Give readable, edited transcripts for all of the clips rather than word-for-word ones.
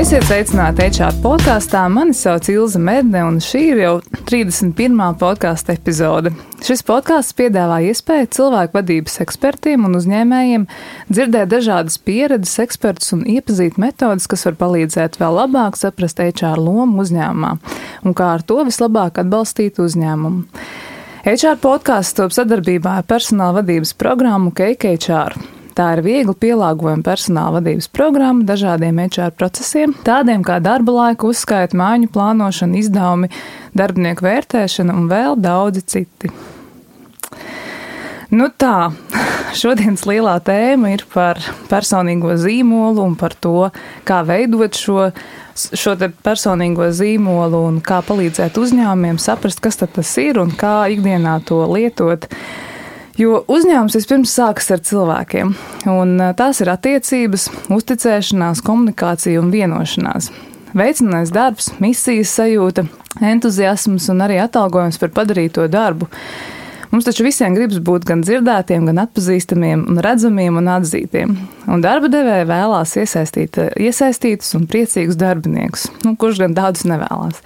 Esiet sveicināti HR podkāstā. Mani sauc Ilze Medne, un šī ir jau 31. podkāsta epizode. Šis podkāsts piedāvā iespēju cilvēku vadības ekspertiem un uzņēmējiem dzirdēt dažādas pieredzes ekspertus un iepazīt metodas, kas var palīdzēt vēl labāk saprast HR lomu uzņēmumā un kā ar to vislabāk atbalstīt uzņēmumu. HR podkāsts top sadarbībā ar personāla vadības programmu Cake HR. Tā ir viegli pielāgojama personāla vadības programma dažādiem HR procesiem, tādiem kā darba laika uzskaita, mājiņu plānošana, izdevumi, darbinieku vērtēšana un vēl daudzi citi. Nu tā, šodienas lielā tēma ir par personīgo zīmolu un par to, kā veidot šo te personīgo zīmolu un kā palīdzēt uzņēmumiem saprast, kas tad tas ir un kā ikdienā to lietot. Jo uzņēmums vispirms sākas ar cilvēkiem, un tās ir attiecības, uzticēšanās, komunikācija un vienošanās. Veicinājums darbs, misijas sajūta, entuziasms un arī atalgojums par padarīto darbu. Mums taču visiem gribas būt gan dzirdētiem, gan atpazīstamiem un redzamiem un atzītiem. Un darba devēja vēlās iesaistītus un priecīgus darbiniekus, kurš gan tādus nevēlās.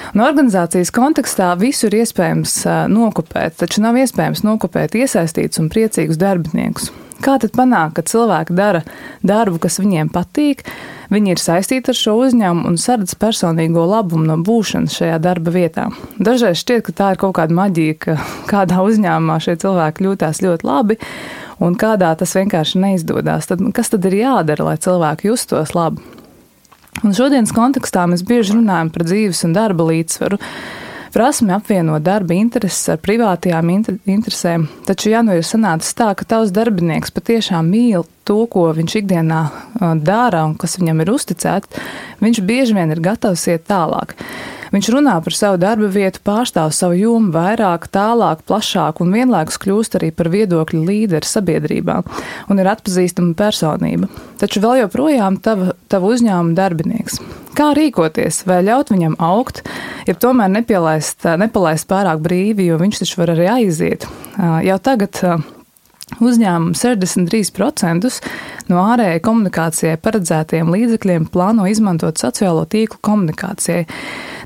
Un organizācijas kontekstā visu ir iespējams nokopēt, taču nav iespējams nokopēt iesaistītus un priecīgus darbiniekus. Kā tad panākt, ka cilvēki dara darbu, kas viņiem patīk, viņi ir saistīti ar šo uzņēmumu un saredz personīgo labumu no būšanas šajā darba vietā? Dažreiz šķiet, ka tā ir kaut kāda maģija, ka kādā uzņēmumā šie cilvēki jūtās ļoti labi un kādā tas vienkārši neizdodas. Tad kas tad ir jādara, lai cilvēki justos labi? Un šodienas kontekstā mēs bieži runājam par dzīves un darba līdzsvaru, prasmi apvienot darba intereses ar privātajām interesēm, taču ja nu ir sanācis tā, ka tavs darbinieks patiešām mīl to, ko viņš ikdienā dara un kas viņam ir uzticēts, viņš bieži vien ir gatavs iet tālāk. Viņš runā par savu darba vietu, pārstāv savu jomu vairāk, tālāk, plašāk un vienlaikus kļūst arī par viedokļu līderi sabiedrībā un ir atpazīstama personība. Taču vēl joprojām tava uzņēmuma darbinieks. Kā rīkoties, vai ļaut viņam augt, ja tomēr nepalaist pārāk brīvi, jo viņš taču var arī aiziet. Jau tagad uzņēmumi 63% no ārējai komunikācijai paredzētajiem līdzekļiem plāno izmantot sociālo tīklu komunikācijai,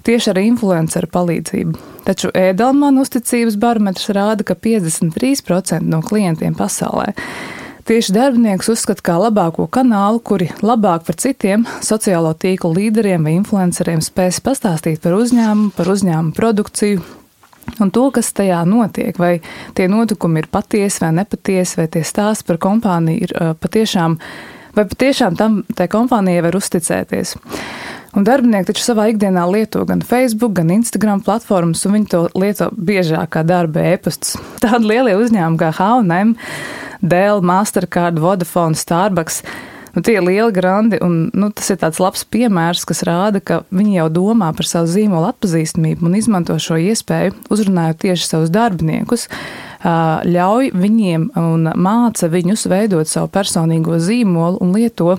tieši ar influenceru palīdzību. Taču Edelman uzticības barometrs rāda, ka 53% no klientiem pasaulē tieši darbinieks uzskata kā labāko kanālu, kuri labāk par citiem sociālo tīklu līderiem vai influenceriem spēs pastāstīt par uzņēmumu produkciju, un to, kas tajā notiek, vai tie notikumi ir patiesi vai nepatiesi, vai tie stāsti par kompāniju ir patiešām tai kompānijai var uzticēties. Un darbinieki taču savā ikdienā lieto gan Facebook, gan Instagram platformas, un viņi to lieto biežāk kā darba e-pastus. Tādi lielie uzņēmumi kā H&M, Dell, Mastercard, Vodafone, Starbucks, tie ir lieli grandi, un tas ir tāds labs piemērs, kas rāda, ka viņi jau domā par savu zīmolu atpazīstamību un izmanto šo iespēju, uzrunājot tieši savus darbiniekus, ļauj viņiem un māca viņus veidot savu personīgo zīmolu un lieto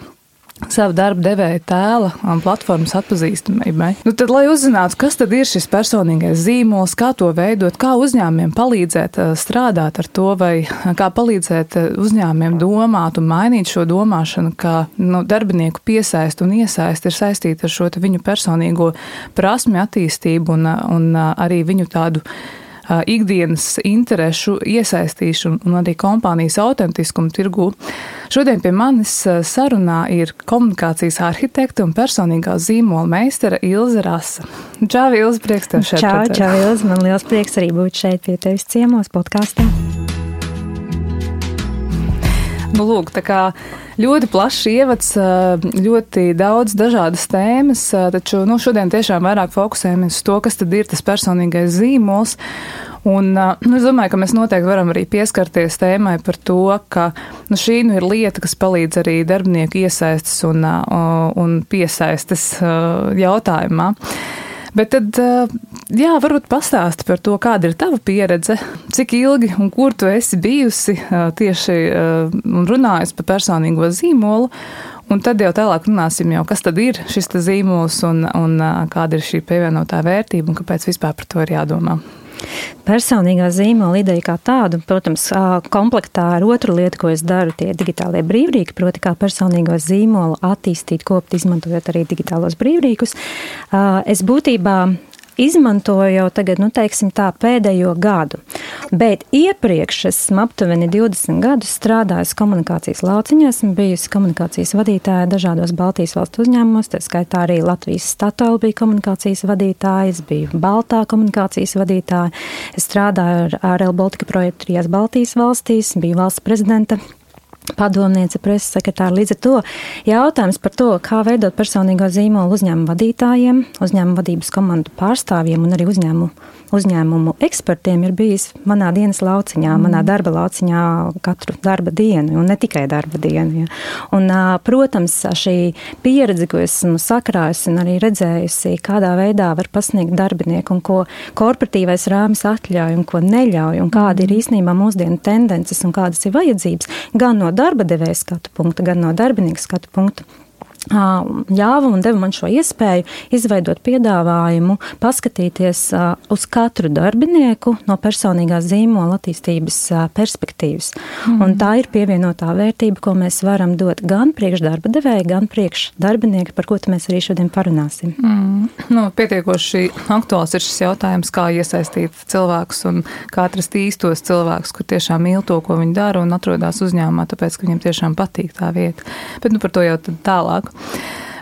savu darba devēja tēla un platformas atpazīstamībai. Tad, lai uzzinātu, kas tad ir šis personīgais zīmols, kā to veidot, kā uzņēmumiem palīdzēt strādāt ar to, vai kā palīdzēt uzņēmumiem domāt un mainīt šo domāšanu, kā darbinieku piesaist un iesaist ir saistīta ar šo viņu personīgo prasmi attīstību un arī viņu tādu ikdienas interešu iesaistīšanu un arī kompānijas autentiskumu tirgū. Šodien pie manis sarunā ir komunikācijas arhitekte un personīgā zīmola meistara Ilze Rasa. Čau, Ilze, prieks tev šeit. Čau, Ilze, man liels prieks arī būt šeit pie tevis ciemos podkāstā. Lūk, tā kā ļoti plašs ievads, ļoti daudz dažādas tēmas, taču šodien tiešām vairāk fokusējamies uz to, kas tad ir tas personīgais zīmols. Un es domāju, ka mēs noteikti varam arī pieskarties tēmai par to, ka šī ir lieta, kas palīdz arī darbinieku iesaistes un piesaistes jautājumā. Bet tad, varbūt pastāsti par to, kāda ir tava pieredze, cik ilgi un kur tu esi bijusi tieši un runājusi par personīgo zīmolu, un tad jau tālāk runāsim kas tad ir šis zīmols un kāda ir šī pievienotā vērtība un kāpēc vispār par to ir jādomā. personīgā zīmola ideja kā tādu, protams, komplektā ar otru lietu, ko es daru, tie digitālie brīvrīki, proti kā personīgo zīmolu attīstīt, kopt, izmantojot arī digitālos brīvrīkus. Es būtībā izmantoju jau tagad, teiksim tā, pēdējo gadu. Bet iepriekš esmu aptuveni 20 gadus strādājusi komunikācijas lauciņā, esmu bijusi komunikācijas vadītāja dažādos Baltijas valstu uzņēmumos, tā skaitā arī Latvijas Statoil bija komunikācijas vadītāja, es biju Baltā komunikācijas vadītāja, es strādāju ar Rail Baltica projektu 3 Baltijas valstīs, biju valsts prezidenta padomniece, preses sekretāra. Līdz ar to jautājums par to, kā veidot personīgo zīmolu uzņēmumu vadītājiem, uzņēmumu vadības komandu pārstāvjiem un arī uzņēmumu ekspertiem ir bijis manā dienas lauciņā, manā darba lauciņā katru darba dienu, un ne tikai darba dienu. Ja. Un, protams, šī pieredze, ko esmu sakrājusi un arī redzējusi, kādā veidā var pasniegt darbinieku un ko korporatīvais rāmis atļauj un ko neļauj, un kāda ir īstenībā mūsdienu tendences un kādas ir vajadzības, gan no darba devēja skatu punkta, gan no darbinieka skatu punkta, ļāva un deva man šo iespēju izveidot piedāvājumu, paskatīties uz katru darbinieku no personīgās zīmola attīstības perspektīvas. Un tā ir pievienotā vērtība, ko mēs varam dot gan priekš darba devēja, gan priekš darbinieka, par ko mēs arī šodien parunāsim. Pietiekoši aktuāls ir šis jautājums, kā iesaistīt cilvēkus un kā atrast īstos cilvēkus, kur tiešām mīl to, ko viņi dara un atrodas uzņēmumā, tāpēc, ka viņiem tiešām patīk tā vieta. Bet par to jau tad tālāk.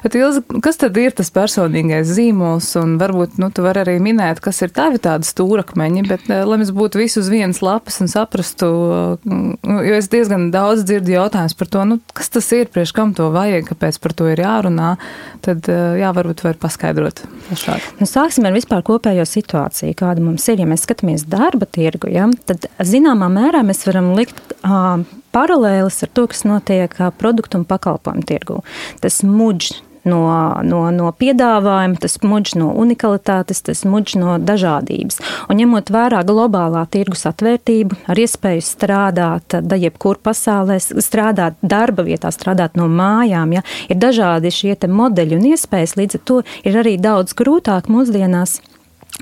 Bet, Ilze, kas tad ir tas personīgais zīmols, un varbūt, tu vari arī minēt, kas ir tavi tādi stūrakmeņi, bet, lai mēs būtu visu uz vienas lapas un saprastu, jo es diezgan daudz dzirdu jautājums par to, kas tas ir, priekš kam to vajag, kāpēc par to ir jārunā, tad, varbūt var paskaidrot plašāk. Sāksim ar vispār kopējo situāciju, kāda mums ir. Ja mēs skatāmies darba tirgu, tad zināmā mērā mēs varam likt paralēlis ar to, kas notiek produktu un pakalpojumu tirgu. Tas mudž no piedāvājuma, tas mudž no unikalitātes, tas mudž no dažādības. Un ņemot vērā globālā tirgus atvērtību, ar iespēju strādāt jebkur pasaulē, strādāt darba vietā, strādāt no mājām, ir dažādi šie te modeļi un iespējas, līdz ar to ir arī daudz grūtāk mūsdienās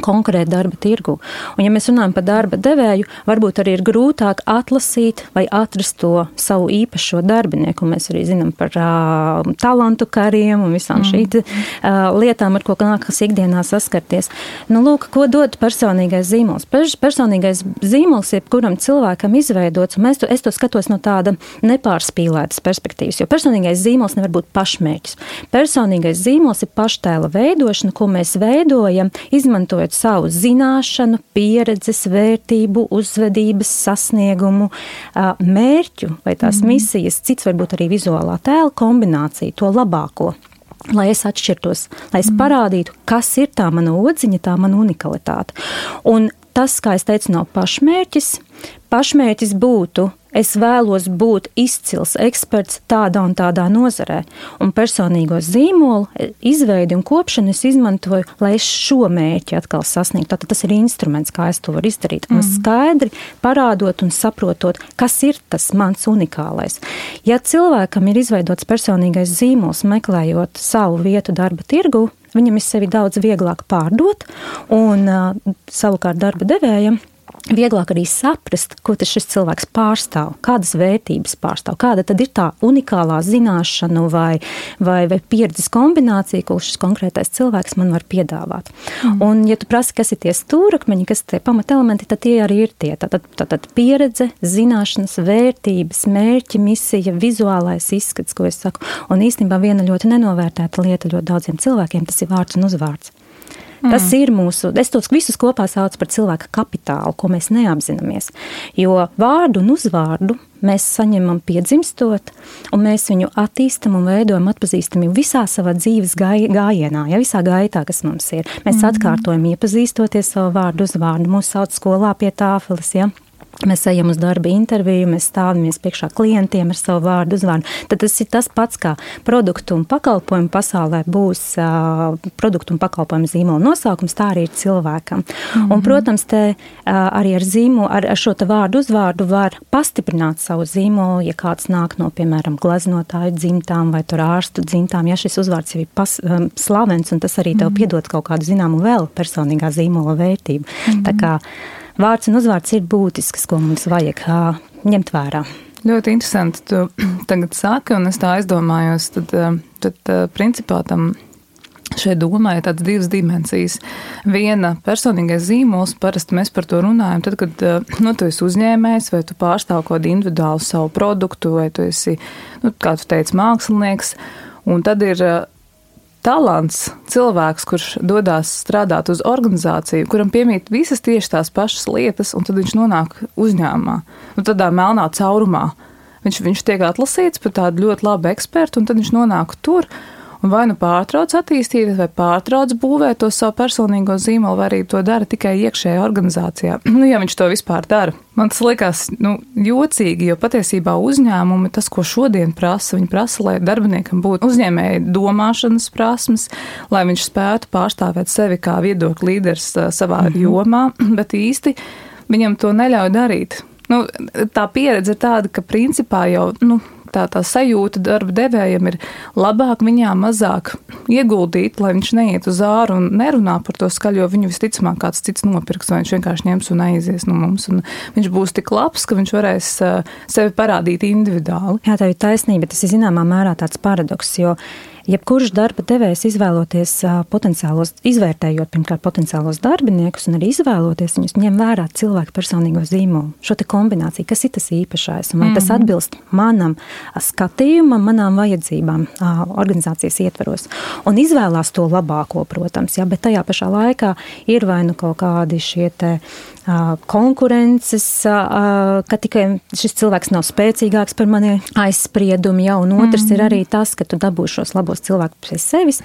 konkurēt darba tirgu. Un ja mēs runājam par darba devēju, varbūt arī ir grūtāk atlasīt vai atrast to savu īpašo darbinieku. Mēs arī zinām par talantu kariem un visām šīm lietām, ar ko nākas ikdienā saskarties. Lūk, ko dod personīgais zīmols? Personīgais zīmols jebkuram cilvēkam izveidots, un es to skatos no tāda nepārspīlētas perspektīvas, jo personīgais zīmols nevar būt pašmērķis. Personīgais zīmols ir paštēla veidošana, ko mēs veidojam, izmantojot savu zināšanu, pieredzes, vērtību, uzvedības, sasniegumu, mērķu vai tās misijas, cits varbūt arī vizuālā tēla kombinācija, to labāko. Lai es atšķirtos, lai es parādītu, kas ir tā mana odziņa, tā mana unikalitāte. Un tas, kā es teicu, nav pašmērķis. Pašmērķis būtu, es vēlos būt izcils eksperts tādā un tādā nozarē. Un personīgo zīmolu izveidi un kopšanu es izmantoju, lai es šo mērķi atkal sasniegtu. Tātad tas ir instruments, kā es to varu izdarīt. Un skaidri parādot un saprotot, kas ir tas mans unikālais. Ja cilvēkam ir izveidots personīgais zīmols, meklējot savu vietu darba tirgu, viņam ir sevi daudz vieglāk pārdot un savukārt darba devējam vieglāk arī saprast, ko tas šis cilvēks pārstāv, kādas vērtības pārstāv, kāda tad ir tā unikālā zināšanu vai pieredzes kombinācija, ko šis konkrētais cilvēks man var piedāvāt. Un, ja tu prasi, kas ir tie stūrakmeņi, kas ir tie pamatelementi, tad tie arī ir tie. Tātad pieredze, zināšanas, vērtības, mērķi, misija, vizuālais izskats, ko es saku. Un īstenībā viena ļoti nenovērtēta lieta ļoti daudziem cilvēkiem, tas ir vārds un uzvārds. Tas ir es tos visus kopā saucu par cilvēka kapitālu, ko mēs neapzināmies. Jo vārdu un uzvārdu mēs saņemam piedzimstot, un mēs viņu attīstam un veidojam atpazīstami visā savā dzīves gājienā, visā gaitā, kas mums ir. Mēs atkārtojam iepazīstoties savu vārdu uzvārdu, mūs sauc skolā pie tāfeles, Mēs ejam uz darba interviju, mēs stāvamies priekšā klientiem ar savu vārdu uzvārdu. Tad tas ir tas pats, kā produktu un pakalpojumu pasaulē būs produktu un pakalpojumu zīmola nosaukums, tā arī ir cilvēkam. Un, protams, te arī ar šo te vārdu uzvārdu var pastiprināt savu zīmolu, ja kāds nāk no, piemēram, gleznotāju dzimtām vai tur ārstu dzimtām, ja šis uzvārds jau ir slavens, un tas arī tev piedod kaut kādu zināmu vēl personīgā zīmola vērtību. Tā kā vārds un uzvārds ir būtisks, ko mums vajag ņemt vērā. Ļoti interesanti, tu tagad saki, un es tā aizdomājos, tad principā tam šeit domāju tādas divas dimensijas. Viena personīgais zīmols, parasti mēs par to runājam, tad, kad tu esi uzņēmējs, vai tu pārstāv kaut kādu individuālu savu produktu, vai tu esi, kā tu teici, mākslinieks, un tad ir talants, cilvēks, kurš dodās strādāt uz organizāciju, kuram piemīt visas tieši tās pašas lietas, un tad viņš nonāk uzņēmumā, tādā melnā caurumā. Viņš tiek atlasīts par tādu ļoti labu ekspertu, un tad viņš nonāk tur, un vai nu pārtrauc attīstīt, vai pārtrauc būvēt to savu personīgo zīmolu, vai arī to dara tikai iekšējā organizācijā. Ja viņš to vispār dara. Man tas likās jocīgi, jo patiesībā uzņēmumi, tas, ko šodien prasa, viņi prasa, lai darbiniekam būtu uzņēmēji domāšanas prasmes, lai viņš spētu pārstāvēt sevi kā viedokļu līderis savā jomā, bet īsti viņam to neļauj darīt. Tā pieredze ir tāda, ka principā jau, tā sajūta darba devējam ir labāk viņām mazāk ieguldīt, lai viņš neiet uz āru un nerunā par to skaļu, jo viņu visticamāk kāds cits nopirks, vai viņš vienkārši ņems un aizies no mums. Un viņš būs tik labs, ka viņš varēs sevi parādīt individuāli. Jā, tā ir taisnība, tas ir zināmā mērā tāds paradoks, jo jebkurš darba devējs izvērtējot pirmkārt potenciālos darbiniekus un arī izvēloties viņus, ņem vērā cilvēku personīgo zīmolu, šo te kombināciju, kas ir tas īpašais, un vai tas atbilst manam skatījumam, manām vajadzībām organizācijas ietvaros. Un izvēlās to labāko, protams, bet tajā pašā laikā ir vai nu kaut kādi šie te konkurences, ka tikai šis cilvēks nav spēcīgāks par mani aizspriedumi, un otrs ir arī tas, ka tu dabūsi šos labos cilvēkus pie sevis,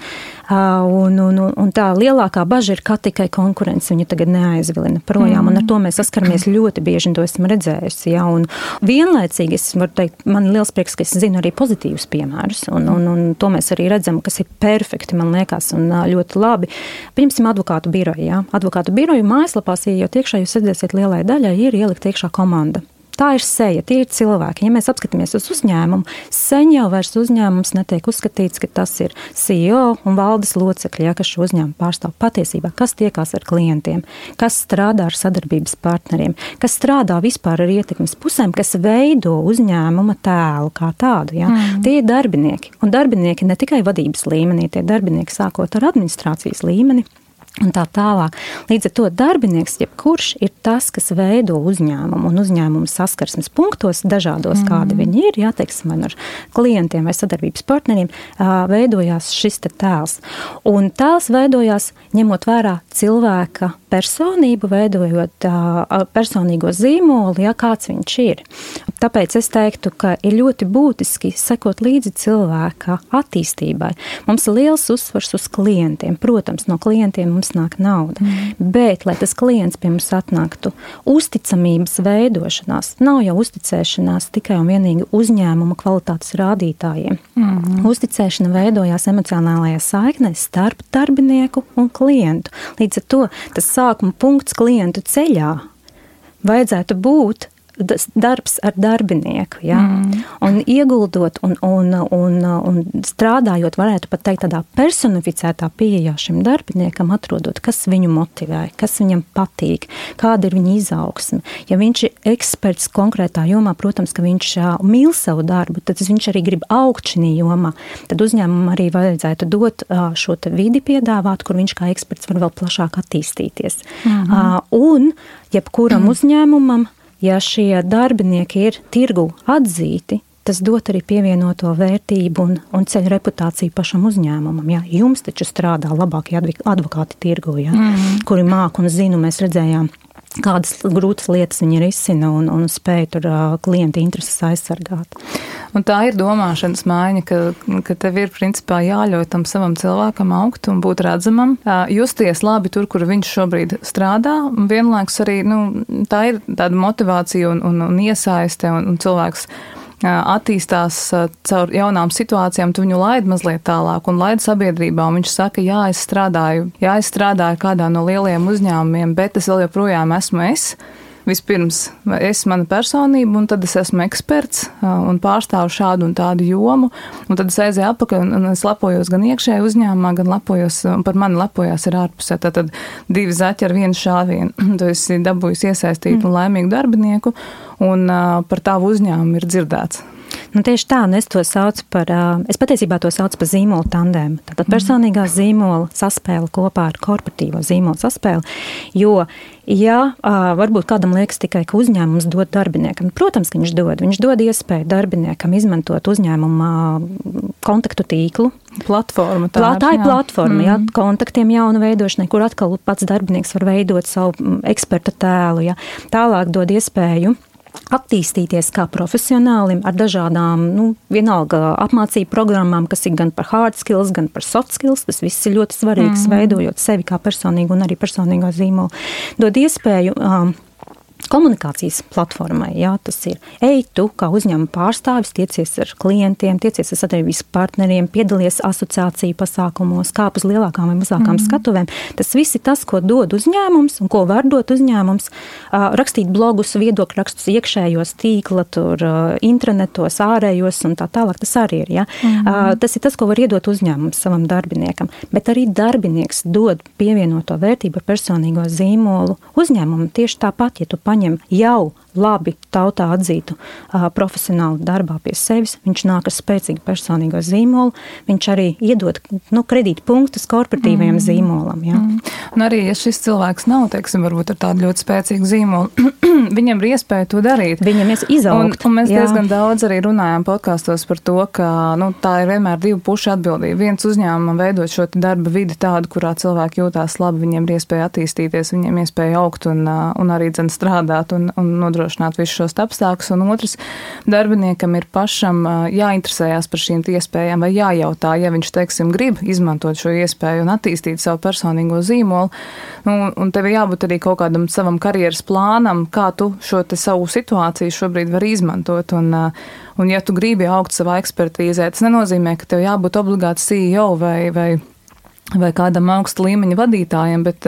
un tā lielākā baža ir, ka tikai konkurence viņu tagad neaizvilina projām, un ar to mēs saskaramies ļoti bieži, un to esmu redzējusi, un vienlaicīgi es varu teikt, man ir liels prieks, ka es zinu arī pozitīvus piemērus, un to mēs arī redzam, kas ir perfekti, man liekas, un ļoti labi. Pieņemsim advokātu biroju, Advokātu biroju mājaslapās, iejot iekšā, jūs redzēsiet, lielai daļai ir ielikt iekšā komanda. Tā ir seja, tie ir cilvēki. Ja mēs apskatāmies uz uzņēmumu, sen jau vairs uzņēmums netiek uzskatīts, ka tas ir CEO un valdes locekļi, kas šo uzņēmumu pārstāv patiesībā, kas tiekās ar klientiem, kas strādā ar sadarbības partneriem, kas strādā vispār ar ietekmes pusēm, kas veido uzņēmuma tēlu kā tādu. Tie ir darbinieki. Un darbinieki ne tikai vadības līmenī, tie darbinieki sākot ar administrācijas līmeni, un tā tālāk. Līdz ar to darbinieks, jebkurš ir tas, kas veido uzņēmumu un uzņēmumu saskarsmes punktos dažādos, kādi viņi ir, teiksim, ar klientiem vai sadarbības partneriem, veidojās šis te tēls. Un tēls veidojās ņemot vērā cilvēka personību, veidojot personīgo zīmolu, kāds viņš ir. Tāpēc es teiktu, ka ir ļoti būtiski sekot līdzi cilvēka attīstībai. Mums ir liels uzsvars uz klientiem. Protams, no klientiem mums nāk nauda. Bet, lai tas klients pie mums atnāktu, uzticamības veidošanās nav jau uzticēšanās tikai un vienīgi uzņēmuma kvalitātes rādītājiem. Uzticēšana veidojās emocionālajā saiknē starp darbinieku un klientu. Līdz ar to tas sākuma punkts klientu ceļā vajadzētu būt darbs ar darbinieku, un ieguldot un strādājot, varētu pat teikt tādā personificētā pieejā šim darbiniekam, atrodot, kas viņu motivē, kas viņam patīk, kāda ir viņa izaugsme. Ja viņš ir eksperts konkrētā jomā, protams, ka viņš mīl savu darbu, tad viņš arī grib augt šī jomā. Tad uzņēmumam arī vajadzētu dot šo te vidi piedāvāt, kur viņš kā eksperts var vēl plašāk attīstīties. Un jebkuram uzņēmumam, ja šie darbinieki ir tirgu atzīti, tas dot arī pievienoto vērtību un ceļ reputāciju pašam uzņēmumam. Jums taču strādā labākie advokāti tirgu, kuri māk un zinu, mēs redzējām, kādas grūtas lietas viņi risina un spēj tur klienta intereses aizsargāt. Un tā ir domāšanas maiņa, ka tev ir principā jāļauj tam savam cilvēkam augt un būt redzamam, justies labi tur, kur viņš šobrīd strādā, un vienlaikus arī, tā ir tāda motivācija un iesaiste, un cilvēks attīstās caur jaunām situācijām, tu viņu laid mazliet tālāk un laid sabiedrībā, un viņš saka, es strādāju kādā no lielajiem uzņēmumiem, bet es vēl joprojām esmu es. vispirms es mana personība, un tad es esmu eksperts un pārstāvu šādu un tādu jomu, un tad es aizēju atpakaļ un es lepojos gan iekšēji uzņēmumā, gan lepojos, un par mani lepojās ir ārpusē. Tātad 2 zaķi ar 1 šāvienu. Tu esi dabūjis iesaistītu un laimīgu darbinieku, un par tavu uzņēmumu ir dzirdēts. Nu, tieši tā, un es to saucu par, es patiesībā to saucu par zīmolu tandēmu. Tātad personīgā zīmola saspēle kopā ar korporatīvo zīmolu saspēli, jo, ja varbūt kādam liekas tikai, ka uzņēmums dod darbiniekam, protams, ka viņš dod iespēju darbiniekam izmantot uzņēmuma kontaktu tīklu. Platforma. Tā ir platforma, jā, kontaktiem jaunu veidošanai, kur atkal pats darbinieks var veidot savu eksperta tēlu, jā. Tālāk dod iespēju attīstīties kā profesionālim ar dažādām, vienalga apmācību programmām, kas ir gan par hard skills, gan par soft skills. Tas viss ir ļoti svarīgs, veidojot sevi kā personīgu un arī personīgo zīmolu. Dod iespēju komunikācijas platformai, jā, tas ir tu kā uzņēmuma pārstāvis, tiecies ar klientiem, tiecies ar sadarbības partneriem, piedalies asociāciju pasākumos, kāp uz lielākām vai mazākām skatuvēm. Tas viss ir tas, ko dod uzņēmums un ko var dot uzņēmums. Rakstīt blogus, viedokļu rakstus iekšējos tīkla, tur intranetos, ārējos un tā tālāk. Tas arī ir, jā. Tas ir tas, ko var iedot uzņēmums savam darbiniekam. Bet arī darbinieks dod pievienoto vērtību ar personīgo zīmolu uzņēmumu. Tieši tāpat, ja tu paņem jau labi tautā atzītu profesionālu darbā pie sevis, viņš nāk ar spēcīgu personīgo zīmolu, viņš arī iedod kredītu punktus korporatīvajam zīmolam. Jā. Un arī, ja šis cilvēks nav, teiksim, varbūt ar tādu ļoti spēcīgu zīmolu, viņam ir iespēja to darīt. Viņam ir izaugt. Un mēs diezgan daudz arī runājām podkastos par to, ka tā ir vienmēr 2 pušu atbildība. Viens uzņēmumam veidot šo darba vidi tādu, kurā cilvēki jūtās labi, viņiem ir iespēja attīstīties, viņiem iespēja augt un arī strādāt un nodrošināt visus šos apstākļus, un otrs, darbiniekam ir pašam jāinteresējās par šīm iespējām vai jājautā, ja viņš, teiksim, grib izmantot šo iespēju un attīstīt savu personīgo zīmolu, un tev jābūt arī kaut kādam savam karjeras plānam, kā tu šo te savu situāciju šobrīd var izmantot, un ja tu gribi augt savā ekspertīzē, tas nenozīmē, ka tev jābūt obligāti CEO vai kādam augsta līmeņa vadītājiem, bet,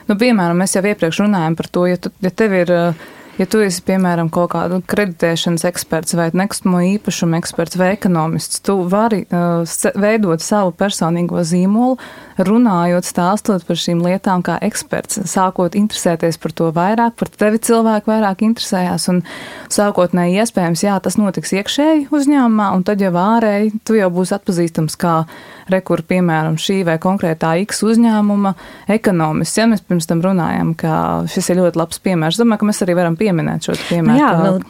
piemēram, mēs jau iepriekš runājam par to, ja tu esi, piemēram, kaut kādu kreditēšanas eksperts vai nekustamo īpašumu eksperts vai ekonomists, tu vari veidot savu personīgo zīmolu, runājot, stāstot par šīm lietām kā eksperts, sākot interesēties par to vairāk, par tevi cilvēku vairāk interesējās, un sākotnēji iespējams, jā, tas notiks iekšēji uzņēmumā, un tad jau ārēji tu jau būsi atpazīstams kā rekur, piemēram, šī vai konkrētā X uzņēmuma ekonomists. Ja mēs pirms tam runājam, ka šis ir ļoti labs piemērs, domāju, ka mēs arī varam pieminēt šo piemēru.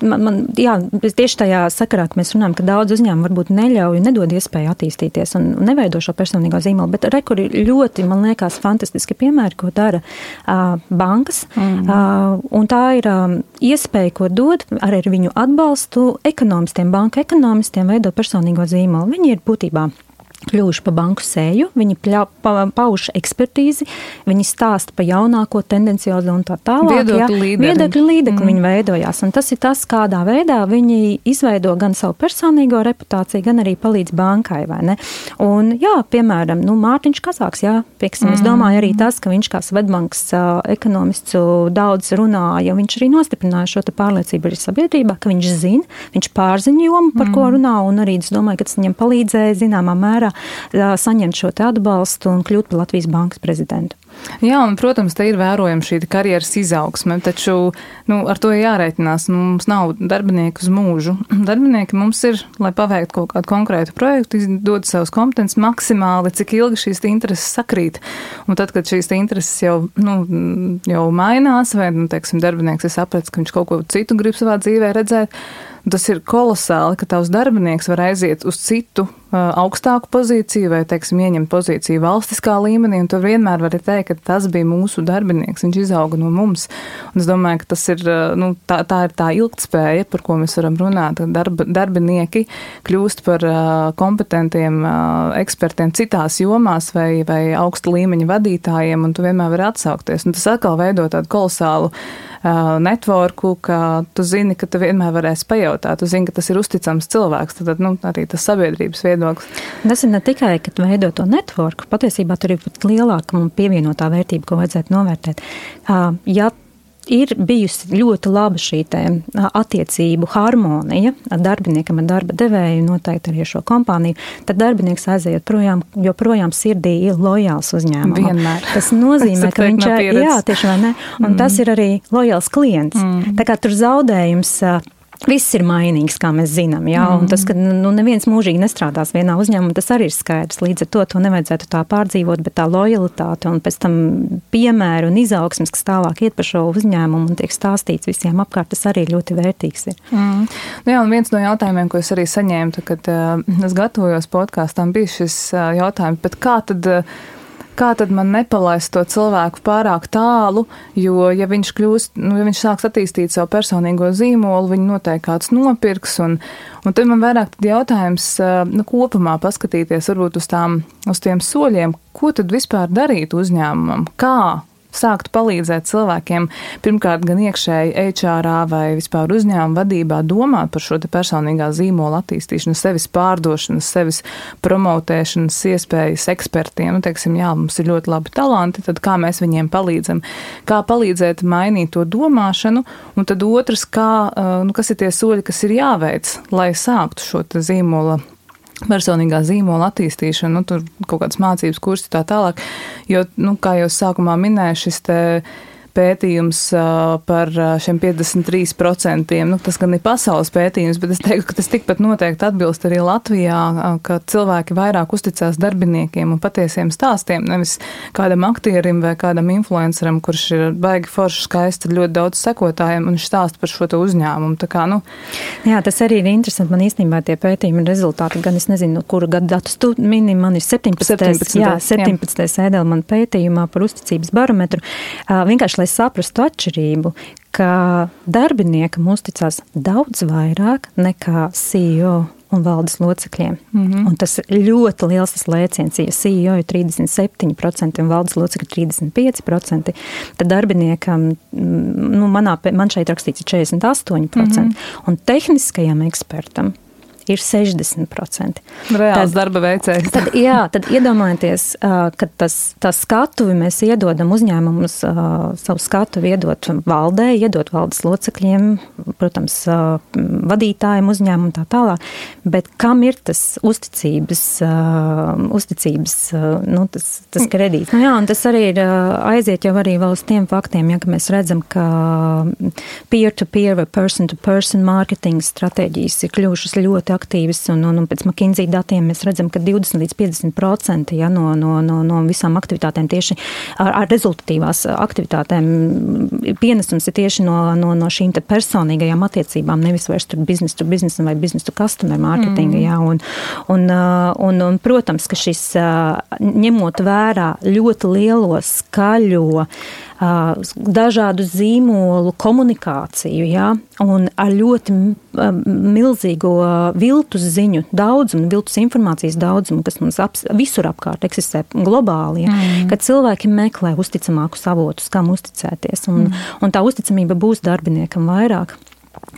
Jā, tieši tajā sakarā, ka mēs runājam, ka daudz uzņēmumu varbūt neļauj, nedod iespēju attīstīties un neveido šo personīgo zīmolu, bet rekur ir ļoti, man liekas, fantastiski piemēri, ko dara bankas, un tā ir iespēja, ko dod arī ar viņu atbalstu ekonomistiem, banka ekonomistiem veidot personīgo zīmolu. Viņi ir būtībā kļuvuši pa banku sēju, viņi pauž ekspertīzi, viņi stāsta pa jaunāko tendenciozo un tā tālāk. Viedokļu līdekli viņi veidojās. Un tas ir tas, kādā veidā viņi izveido gan savu personīgo reputāciju, gan arī palīdz bankai, vai ne? Un jā, piemēram, Mārtiņš Kazāks, jā, pieksim, es domāju arī tas, ka viņš kā Svedbankas ekonomists daudz runāja, viņš arī nostiprināja šo te pārliecību arī sabiedrībā, ka viņš zina, viņš pārziņo jomu, par ko runā, un arī es domāju, ka tas viņam palīdzēja zināmā mērā saņemt šo te atbalstu un kļūt par Latvijas bankas prezidentu. Jā, un, protams, te ir vērojama šī karjeras izaugsme, taču ar to jārēķinās. Mums nav darbinieku uz mūžu. Darbinieki mums ir, lai paveiktu kaut kādu konkrētu projektu, dod savus kompetences maksimāli, cik ilgi šīs intereses sakrīt. Un tad, kad šīs intereses jau mainās, vai, teiksim, darbinieks ir sapratis, ka viņš kaut ko citu grib savā dzīvē redzēt, tas ir kolosāli, ka tavs darbinieks var aiziet uz citu augstāku pozīciju vai, teiksim, ieņemt pozīciju valstiskā līmenī, un tu vienmēr vari teikt, ka tas bija mūsu darbinieks, viņš izauga no mums. Un es domāju, ka tas ir, tā ir tā ilgtspēja, par ko mēs varam runāt, ka darbinieki kļūst par kompetentiem ekspertiem citās jomās vai augsta līmeņa vadītājiem, un tu vienmēr vari atsaukties. Un tas atkal veido tādu kolosālu networku, ka tu zini, ka tu vienmēr varēsi pajautāt, tu zini, ka tas ir uzticams cilvēks, tad arī tas sabiedrības viedoklis. Tas ir ne tikai, ka veido to networku, patiesībā tur ir pat lielāka un pievienotā vērtība, ko vajadzētu novērtēt. Ja ir bijusi ļoti laba šī attiecību harmonija ar darbiniekam, ar darba devēju, noteikti arī šo kompāniju, tad darbinieks aiziet projām, joprojām sirdī ir lojāls uzņēmumam. Vienmēr. Tas nozīmē, ka viņš ir, jā, tieši vai ne, un tas ir arī lojāls klients. Tā kā tur zaudējums, viss ir mainīgs, kā mēs zinām, jā, un tas, ka neviens mūžīgi nestrādās vienā uzņēmumā, tas arī ir skaidrs. Līdz ar to nevajadzētu tā pārdzīvot, bet tā lojalitāte un pēc tam piemēru un izaugsmes, kas tālāk iet par šo uzņēmumu un tiek stāstīts visiem apkārt, tas arī ļoti vērtīgs ir. Nu jā, un viens no jautājumiem, ko es arī saņēmu, kad es gatavojos podkāstam, bija šis jautājums, bet kā tad man nepalaist to cilvēku pārāk tālu, jo, ja viņš kļūst, ja viņš sāks attīstīt savu personīgo zīmolu, viņu noteikti kāds nopirks, un tad man vairāk tad jautājums, kopumā paskatīties varbūt uz tiem soļiem, ko tad vispār darīt uzņēmumam, kā sākt palīdzēt cilvēkiem, pirmkārt gan iekšēji HR vai vispār uzņēmuma vadībā domāt par šo te personīgā zīmola attīstīšanu, sevis pārdošanas, sevis promotēšanas iespējas ekspertiem. Teiksim, jā, mums ir ļoti labi talanti, tad kā mēs viņiem palīdzam, kā palīdzēt mainīt to domāšanu, un tad otrs, kas ir tie soļi, kas ir jāveic, lai sāktu šo te zīmola personīgā zīmola attīstīšana, tur kaut kādas mācības kursi tā tālāk, jo, kā jau sākumā minēju, šis te pētījums par šiem 53%, tas gan ir pasaules pētījums, bet es teiktu, ka tas tikpat noteikti atbilst arī Latvijā, ka cilvēki vairāk uzticās darbiniekiem un patiesiem stāstiem, nevis kādam aktierim vai kādam influenceram, kurš ir baigi forši skaisti, ļoti daudz sekotājiem un viņš stāsta par šo te uzņēmumu. Tā kā, Jā, tas arī ir interesanti. Man īstenībā tie pētījumi rezultāti, gan es nezinu, kuru gadu datus tu mini, man ir 17. Ēdelmana pētījumā par uzticības barometru. Vienkārši, lai saprastu atšķirību, ka darbiniekam uzticās daudz vairāk nekā CEO un valdes locekļiem. Un tas ļoti liels tas lēciens, ja CEO ir 37% un valdes locekļi 35%, tad darbiniekam, man šeit rakstīts 48%, un tehniskajam ekspertam ir 60%. Reāls darba veicējs. Tad iedomājieties, ka tā skatuvi mēs iedodam uzņēmumus, savu skatuvi iedot valdē, iedot valdes locekļiem, protams, vadītājiem uzņēmumu tā tālāk, bet kam ir tas uzticības, tas kredīts? Un tas arī ir aiziet jau arī vēl uz tiem faktiem, ka mēs redzam, ka peer-to-peer vai person-to-person marketing stratēģijas ir kļuvušas ļoti aktīvas, un pēc McKinsey datiem mēs redzam, ka 20 līdz 50% no visām aktivitātēm tieši ar rezultatīvās aktivitātēm pienesums ir tieši no šīm te personīgajām attiecībām, nevis vairs tur business to business vai business to customer marketinga, un protams, ka šis ņemot vērā ļoti lielo skaļo dažādu zīmolu komunikāciju, un ar ļoti milzīgo viltus ziņu daudzumu, viltus informācijas daudzumu, kas mums visur apkārt eksistē globāli, kad cilvēki meklē uzticamākus avotus, kam uzticēties, un tā uzticamība būs darbiniekam vairāk.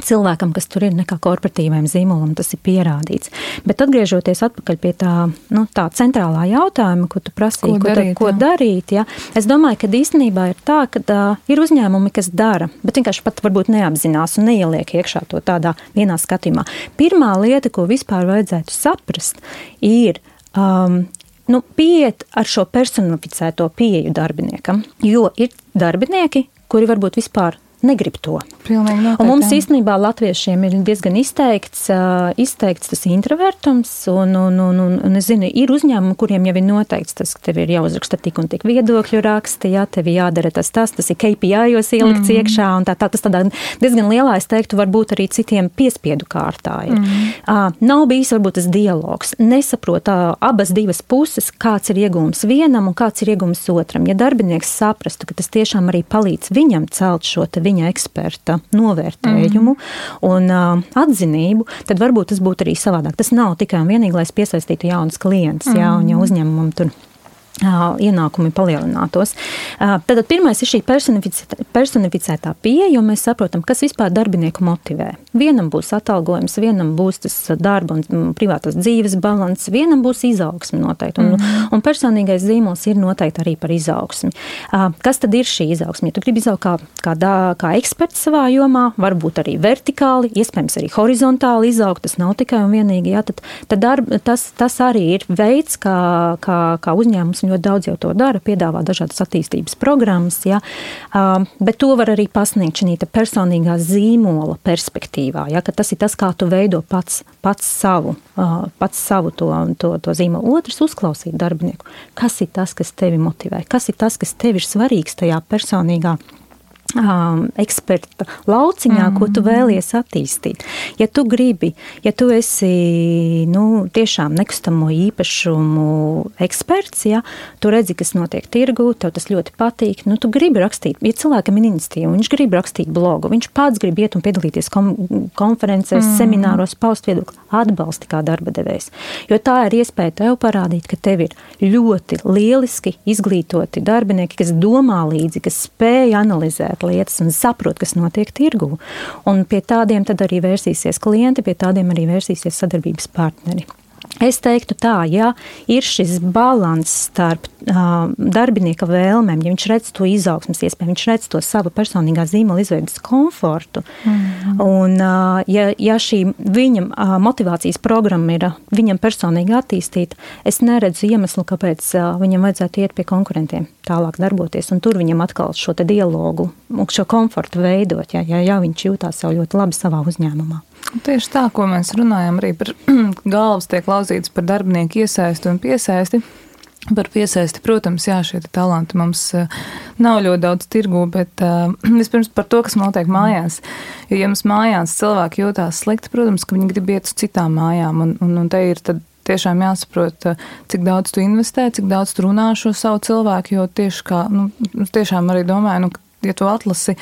Cilvēkam, kas tur ir, nekā korporatīvajam zīmolam, tas ir pierādīts. Bet atgriežoties atpakaļ pie tā centrālā jautājuma, ko tu prasīji, ko darīt, es domāju, ka īstenībā ir tā, ka ir uzņēmumi, kas dara, bet vienkārši pat varbūt neapzinās un neieliek iekšā to tādā vienā skatījumā. Pirmā lieta, ko vispār vajadzētu saprast, ir pieiet ar šo personificēto pieeju darbiniekam, jo ir darbinieki, kuri varbūt vispār negrib to. Pilnīgi noteikti. Un mums īstenībā latviešiem ir diezgan izteikts tas introvertums, un es zinu, ir uzņēmumi, kuriem jau ir noteikts tas, ka tev ir jāuzraksta tik un tik viedokļu raksti, tev jādara tas ir KPI-os ielikts iekšā, un tas tādā diezgan lielā, es teiktu, varbūt arī citiem piespiedu kārtā ir. Nav bijis varbūt tas dialogs. Nesaprot abas divas puses, kāds ir iegūms vienam un kāds ir iegūms otram. Ja darbinieks saprastu, ka tas tiešām arī palīdz viņam celt šo viņa eksperta novērtējumu un atzinību, tad varbūt tas būtu arī savādāk. Tas nav tikai un vienīgi, lai es piesaistītu jaunus klientus, un ja uzņēmumam tur ienākumi palielinātos. Tad pirmais ir šī personificētā pieeja, jo mēs saprotam, kas vispār darbinieku motivē. Vienam būs atalgojums, vienam būs tas darba un privātās dzīves balans, vienam būs izaugsme noteikti. Un personīgais zīmols ir noteikti arī par izaugsmi. Kas tad ir šī izaugsme? Ja tu gribi izaugt kā eksperts savā jomā, varbūt arī vertikāli, iespējams arī horizontāli izaugt, tas nav tikai un vienīgi, tas arī ir veids, kā uzņēmums ļoti daudz jau to dara, piedāvā dažādas attīstības programmas, ja, bet to var arī pasniegt šī personīgā zīmola perspektīvā, ja, ka tas ir tas, kā tu veido pats savu to zīmolu. Otrs, uzklausīt darbinieku. Kas ir tas, kas tevi motivē? Kas ir tas, kas tev ir svarīgs tajā personīgā eksperta lauciņā, ko tu vēlies attīstīt. Ja tu esi tiešām nekustamo īpašumu eksperts, ja, tu redzi, kas notiek tirgū, tev tas ļoti patīk, tu gribi rakstīt, ja cilvēkam ir iniciatīva, viņš grib rakstīt blogu, viņš pats grib iet un piedalīties konferencēs, semināros, paust viedokli, atbalsti kā darba devējs. Jo tā ir iespēja tev parādīt, ka tev ir ļoti lieliski izglītoti darbinieki, kas domā līdzi, kas spēj analizēt lietas un saprot, kas notiek tirgū. Un pie tādiem tad arī vērsīsies klienti, pie tādiem arī vērsīsies sadarbības partneri. Es teiktu tā, ja ir šis balans starp darbinieka vēlmēm, ja viņš redz to izaugsmas iespēju, viņš redz to savu personīgā zīmola izveidas komfortu, un ja šī viņam motivācijas programma ir viņam personīgi attīstīta, es neredzu iemeslu, kāpēc viņam vajadzētu iet pie konkurentiem tālāk darboties, un tur viņam atkal šo te dialogu, šo komfortu veidot, ja viņš jūtās jau ļoti labi savā uzņēmumā. Tieši tā, ko mēs runājam arī par galvas tiek lauzītas par darbinieku iesaisti un piesaisti. Par piesaisti, protams, šie talanti mums nav ļoti daudz tirgū, bet vispirms par to, kas notiek mājās. Jo, ja mums mājās cilvēki jūtās slikti, protams, ka viņi grib iet uz citām mājām, un te ir tad tiešām jāsaprot, cik daudz tu investē, cik daudz tu runā šo savu cilvēku, jo tieši tiešām arī domāju, ja tu atlasi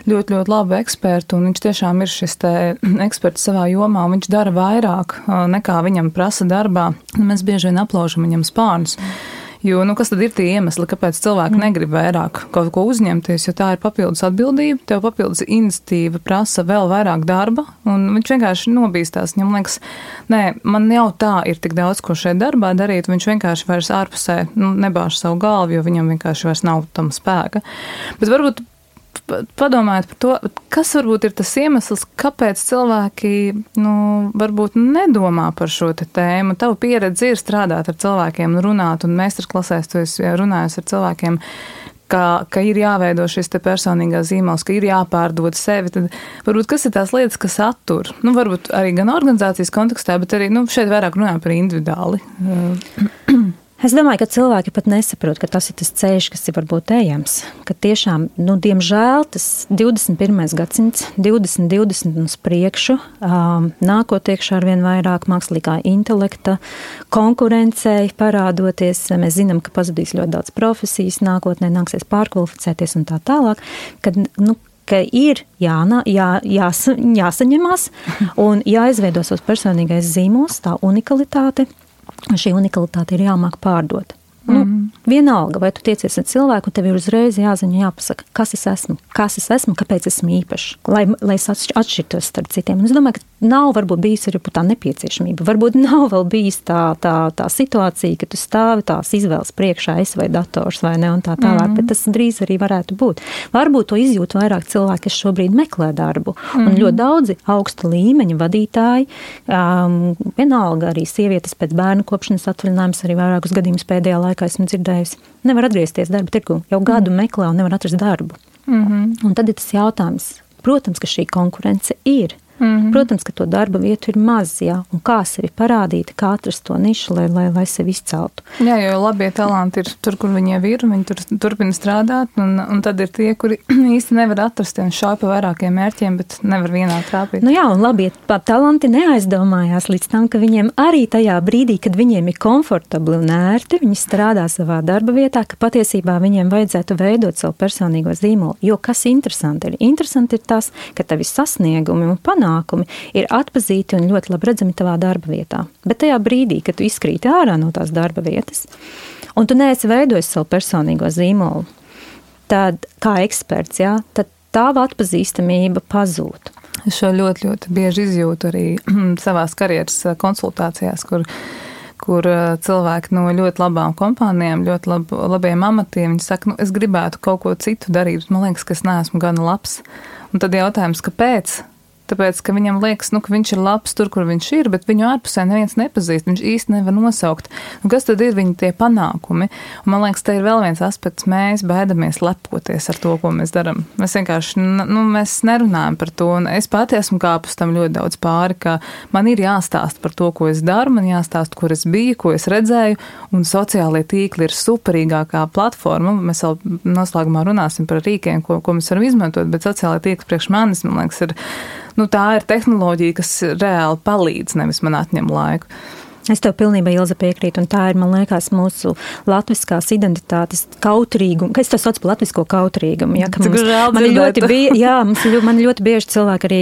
ļoti, ļoti labu ekspertu, un viņš tiešām ir šis te eksperts savā jomā, un viņš dara vairāk nekā viņam prasa darbā, mēs bieži vien aplaužam viņam spārnus. Jo, kas tad ir tie iemesli, kāpēc cilvēki negrib vairāk kaut ko uzņemties, jo tā ir papildus atbildība, tev papildus iniciatīva prasa vēl vairāk darba, un viņš vienkārši nobīstās. Viņam liekas, man jau tā ir tik daudz, ko šeit darbā darīt, viņš vienkārši vairs ārpusē nebāž savu galvu, jo viņam vienkārši vairs nav tam spēka. Bet varbūt padomājiet par to, kas varbūt ir tas iemesls, kāpēc cilvēki varbūt nedomā par šo tēmu. Tava pieredze ir strādāt ar cilvēkiem, runāt, un meistarklasēs tu esi runājis ar cilvēkiem, ka ir jāveido šis te personīgās zīmols, ka ir jāpārdod sevi. Tad varbūt kas ir tās lietas, kas attur? Varbūt arī gan organizācijas kontekstā, bet arī šeit vairāk runājam par individuāli. Es domāju, ka cilvēki pat nesaprot, ka tas ir tas ceļš, kas ir varbūt ejams. Ka tiešām, diemžēl, tas 21. gadsimts, 2020 uz priekšu, nākot iekšā arvien vairāk mākslīgā intelekta, konkurencei parādoties. Mēs zinām, ka pazudīs ļoti daudz profesijas, nākotnē nāksies pārkvalificēties un tā tālāk, ka ir jāsaņemās un jāizveido savs personīgais zīmols, tā unikalitāte. Šī unikalitāte ir jāmāk pārdot. Vienalga, vai tu tiecies ar cilvēku, tev ir uzreiz jāziņa, jāpasaka, kas es esmu, kāpēc esmu īpašs, lai es atšķirtos starp citiem. Un es domāju, ka nav varbūt bijis arī tā nepieciešamība. Varbūt nav vēl bijis tā situācija, ka tu stāvi tās izvēles priekšā, es vai dators vai ne, un tā tālāk, bet tas drīz arī varētu būt. Varbūt to izjūt vairāk cilvēki, kas šobrīd meklē darbu. Un ļoti daudzi augsta līmeņa vadītāji, vienalga arī sievietes pēc bērnu kopšanas atvaļinājums, arī vairākus gadījumus pēdējā laikā esmu dzirdējusi, nevar atgriezties darba tirgu, jau gadu meklē un nevar atrast darbu. Un tad ir tas jautājums, protams, ka šī konkurence ir. Protams, ka to darba vietu ir maz, un kā sevi parādīt, kā atrast to nišu, lai sevi izceltu. Jā, jo labie talanti ir tur, kur viņi jau ir, viņi tur turpina strādāt, un tad ir tie, kuri īsti nevar atrast, un šauj pa vairākiem mērķiem, bet nevar vienā trāpīt. Un labie talanti neaizdomājās līdz tam, ka viņiem arī tajā brīdī, kad viņiem ir komfortabli un ērti, viņi strādā savā darba vietā, ka patiesībā viņiem vajadzētu veidot savu personīgo zīmolu. Jo kas interesanti ir? Interesanti ir tas, ka tavi sasniegumi un panākumi ir atpazīti un ļoti labi redzami tavā darba vietā. Bet tajā brīdī, kad tu izkrīti ārā no tās darba vietas un tu neesi veidojis savu personīgo zīmolu, tad kā eksperts, jā, tad tava atpazīstamība pazūd. Es šo ļoti, ļoti bieži izjūtu arī savās karjeras konsultācijās, kur cilvēki no ļoti labām kompānijām, ļoti labiem amatiem, viņi saka, es gribētu kaut ko citu darīt, bet man liekas, ka es neesmu gana labs. Un tad jautājums, kāpēc? Tāpēc, ka viņam liekas, ka viņš ir labs tur, kur viņš ir, bet viņu ārpusē neviens nepazīst, viņš īsti nevar nosaukt. Kas tad ir viņa tie panākumi? Un man liekas, te ir vēl viens aspekts, mēs baidamies lepoties ar to, ko mēs darām. Mēs vienkārši, mēs nerunājam par to, un es pati esmu kāpus tam ļoti daudz pāri, ka man ir jāstāst par to, ko es daru, man jāstāst, kur es biju, ko es redzēju, un sociālie tīkli ir superīgākā platforma. Mēs vēl noslēgumā runāsim par rīkiem, ko mēs varam izmantot, bet sociālie tīkli priekš manis, man liekas, ir tā ir tehnoloģija, kas reāli palīdz, nevis man atņem laiku. Es tev pilnībā, Ilze, piekrītu, un tā ir, man liekas, mūsu latviskās identitātes kautrīguma, ka es to saucu par latvisko kautrīgumu, ja, ka man ļoti bieži cilvēki arī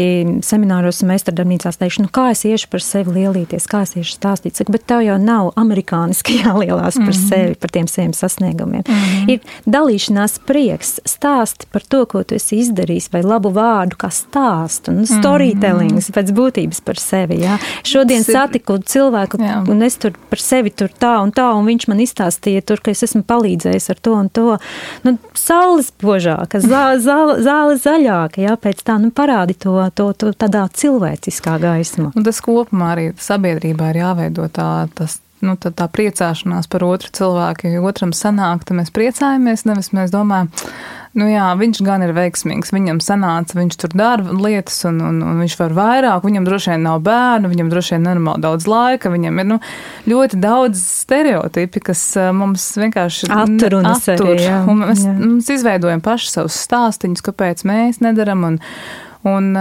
semināros un meistardarbnīcās teikšu, kā es iešu par sevi lielīties, kā es iešu stāstīt, saku, bet tev jau nav amerikāniski jālielās par sevi, par tiem saviem sasniegumiem. Ir dalīšanās prieks, stāsti par to, ko tu esi izdarījis, vai labu vārdu, kā stāstu, un storytellings pēc būtības par sevi, ja. Šodien satiku cilvēku, un es tur par sevi tur tā, un viņš man izstāstīja tur, ka es esmu palīdzējis ar to un to. Saules požāka, zāle zaļāka, jā, pēc tā, parādi to tādā cilvēciskā gaismā. Un tas kopumā arī sabiedrībā ir jāveido tā priecāšanās par otru cilvēku, jo otram sanāk, tad mēs priecājamies, nevis mēs domājam, viņš gan ir veiksmīgs, viņam sanāca, viņš tur dara lietas un viņš var vairāk, viņam droši vien nav bērnu, viņam droši vien nenormāli daudz laika, viņam ir ļoti daudz stereotipi, kas mums vienkārši attur. Un mēs izveidojam paši savus stāstiņus, kāpēc mēs nedaram, un